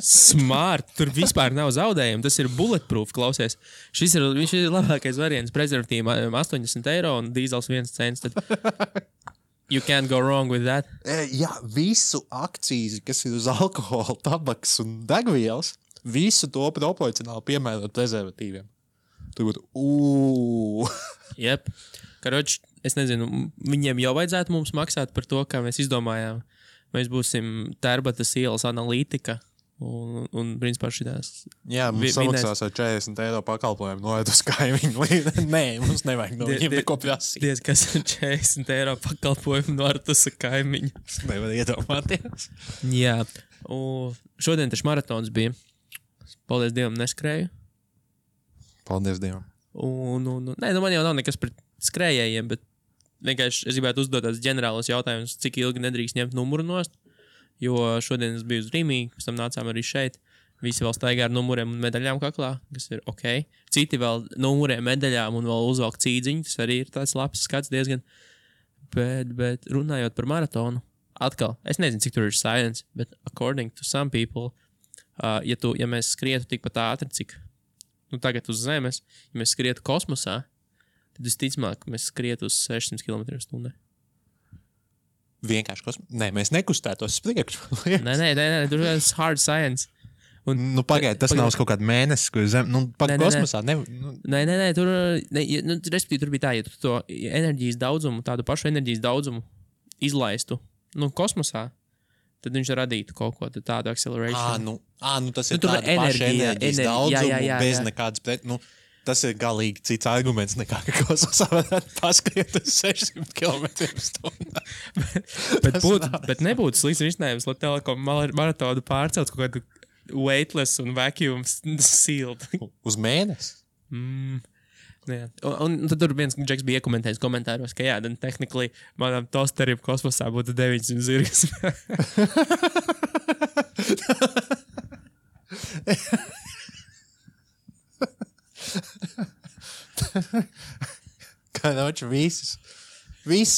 Smart, tur vispār nav zaudējumu, tas ir bulletproof, klausies. Šis ir labākais variants, prezervatīviem 80 eiro un dīzels 1 cents. You can't go wrong with that. Jā, visu akcīzi, kas ir uz alkohola, tabaks un degvielas, visu to proporcionāli piemērot prezervatīviem. Tur būtu, Jep. Karoči, es nezinu, viņiem jau vajadzētu mums maksāt par to, kā mēs izdomājām. Mēs būsim Tērbatas ielas analītika Un principā šitās. Jā, mums samaksās ar 40 eiro pakalpojumu noiet uz kaimiņu. Nē, mums nevajag no viņiem neko prasīt. Diez, kas ir 40 eiro pakalpojumu noiet uz kaimiņu. Es nevaru iedomāties. Jā, un šodien taču maratons bija. Paldies Dievam, neskrēju. Paldies Dievam. Nē, man jau nav nekas pret skrējējiem, bet vienkārši es gribētu uzdot tādus ģenerālus jautājumus, cik ilgi nedrīkst ņemt numuru nost. Jo šodien es biju uz Rīmī, pēc tam nācām arī šeit. Visi vēl staigā ar numuriem un medaļām kaklā, kas ir ok. Citi vēl numuriem, medaļām un vēl uzvelk cīdziņu. Tas arī ir tāds labs skats diezgan. Bet runājot par maratonu, atkal, es nezinu, cik tur ir science, bet according to some people, ja mēs skrietu tikpat ātri, cik tagad uz Zemes, ja mēs skrietu kosmosā, tad visticamāk, mēs skrietu uz 600 km/h. Vienkārši Nē, mēs nekustētos priekšu. Nē, tur ir hard science. Pagaid, tas nav uz kaut kādu mēnesi, kur kosmosā Nē, tur respektīvi tur bija tā, ja tu to enerģijas daudzumu, tādu pašu enerģijas daudzumu izlaistu, kosmosā, tad viņš radītu kaut ko tādu acceleration. Tas ir tāda paša enerģijas daudzumu bez nekādas tas ir galīgi cits arguments nekā, ka kosmosā varētu paskriet uz 600 km/h. bet nebūtu slikts risinājums, lai telekom maratonu pārcelt kaut kādu weightless un vacuum sealed. Uz mēnesi? Jā. Un tad tur viens džeks bija iekomentējis komentāros, ka jā, then technically manam tosterim kosmosā būtu 900 zirgas. Kā noči viss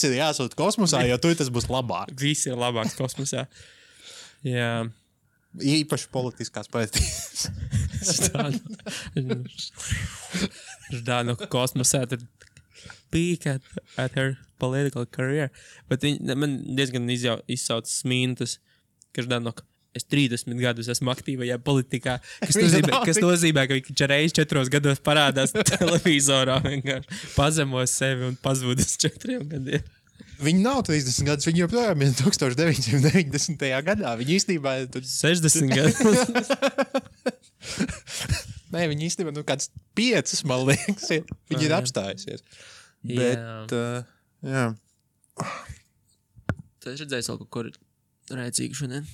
ir jāsūt kosmosā, jo tur tas būs labāk. Viss ir labāks kosmosā. Jā. Īpaši politiskās partijas. Ždānu kosmosā tad peak at her political career. Bet man diezgan izsauc smīntas, ka Ždānu es 30 gadus esmu aktīvajā politikā, kas nozīmē, ka viņš reiz 4 gados parādās televizorā, vienkārši pazemos sevi un pazūd uz 4 gadiem. Viņi nav 30 gadus, viņi joprojām ir 1990. gadā. Viņi īstenībā ir 60 gadus. Nē, viņi īstenībā kāds 5, man liekas, ir. Viņi ir apstājusies. Bet, jā. Tu esi redzējis vēl kaut ko rēcīgu šodien?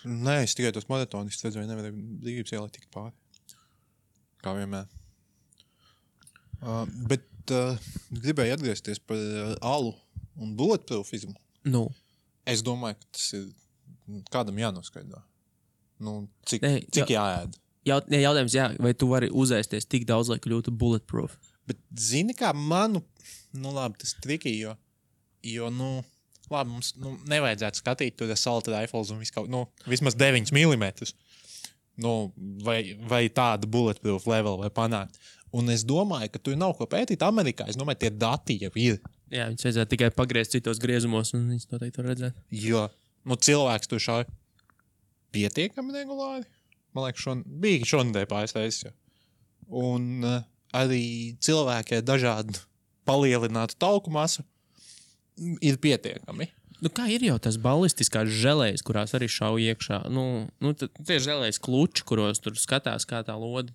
Nē, es tikai tos maratonistus redzēju, nevarēju brīvības ielai tikt pāri. Kā vienmēr. Bet gribēju atgriezties par alu un bulletproofismu. Es domāju, ka tas ir kādam jānoskaidro. Cik jāēd? Jautājums, vai tu vari uzēsties tik daudz, lai kļūtu bulletproof? Bet zini kā labi, tas triki, jo labi, mums nevajadzētu skatīt tur assault rifles un vismaz 9 mm. Vai tādu bulletproof level vai panākt. Un es domāju, ka tur nav ko pētīt Amerikā. Es domāju, tie dati jau ir. Jā, viņus vajadzētu tikai pagriezt citos griezumos un viņus noteikti var redzēt. Jo, cilvēks tur šauj pietiekami regulāri. Man liekas, bija šonadēļ pāris reizes. Un arī cilvēki ar dažādu palielinātu tauku masu ir pietiekami. Kā ir jau tas ballistiskās želējas, kurās arī šauj iekšā? Tie želējas kluči, kuros tur skatās, kā tā lodi,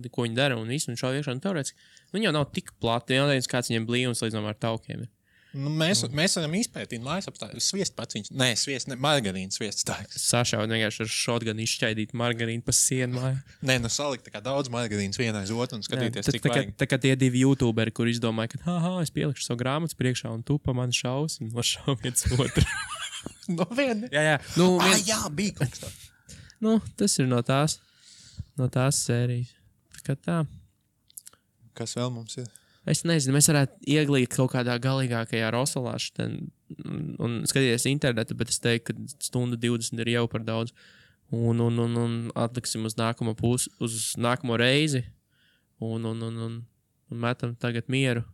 ko viņi dara, un visu, un šauj iekšā. Teorētiski, viņi jau nav tik plati, jau nezinu, kāds viņiem blīvums līdz ar taukiem ir. Mēs varam izpētīt mājas apstākļus. Sviest pats viņš. Nē, margarīna sviests tāds. Sašaut vienkārši ar šotganu izšķaidīt margarīnu pa sienu mājā. Nē, salikt tā kā daudz margarīnas vienā aiz otru un skatīties, cik vajag. Tā kā tie 2 youtuberi, kur izdomāja, ka es pielikšu savu grāmatu priekšā un tu pa mani šaus un nošau viens otru. No viena? Jā. Jā, bija kaut kas tā. Tas ir no tās sērijas. Tā kā tā. Kas vēl mums ir? Es nezinu, mēs varētu ieglīt kaut kādā galīgākajā rosolā un skatīties internetu, bet es teiktu, ka 1:20 ir jau par daudz. Un atliksim uz nākamo uz nākamo reizi un metam tagad mieru.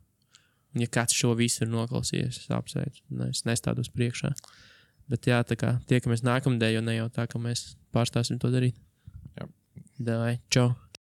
Un ja kāds šo visu ir noklausījies, es apsveicu. Es nestādos priekšā. Bet jā, tā kā tiekamies nākamdēļ, jo ne jau tā, ka mēs pārstāsim to darīt. Jā. Davai, čau!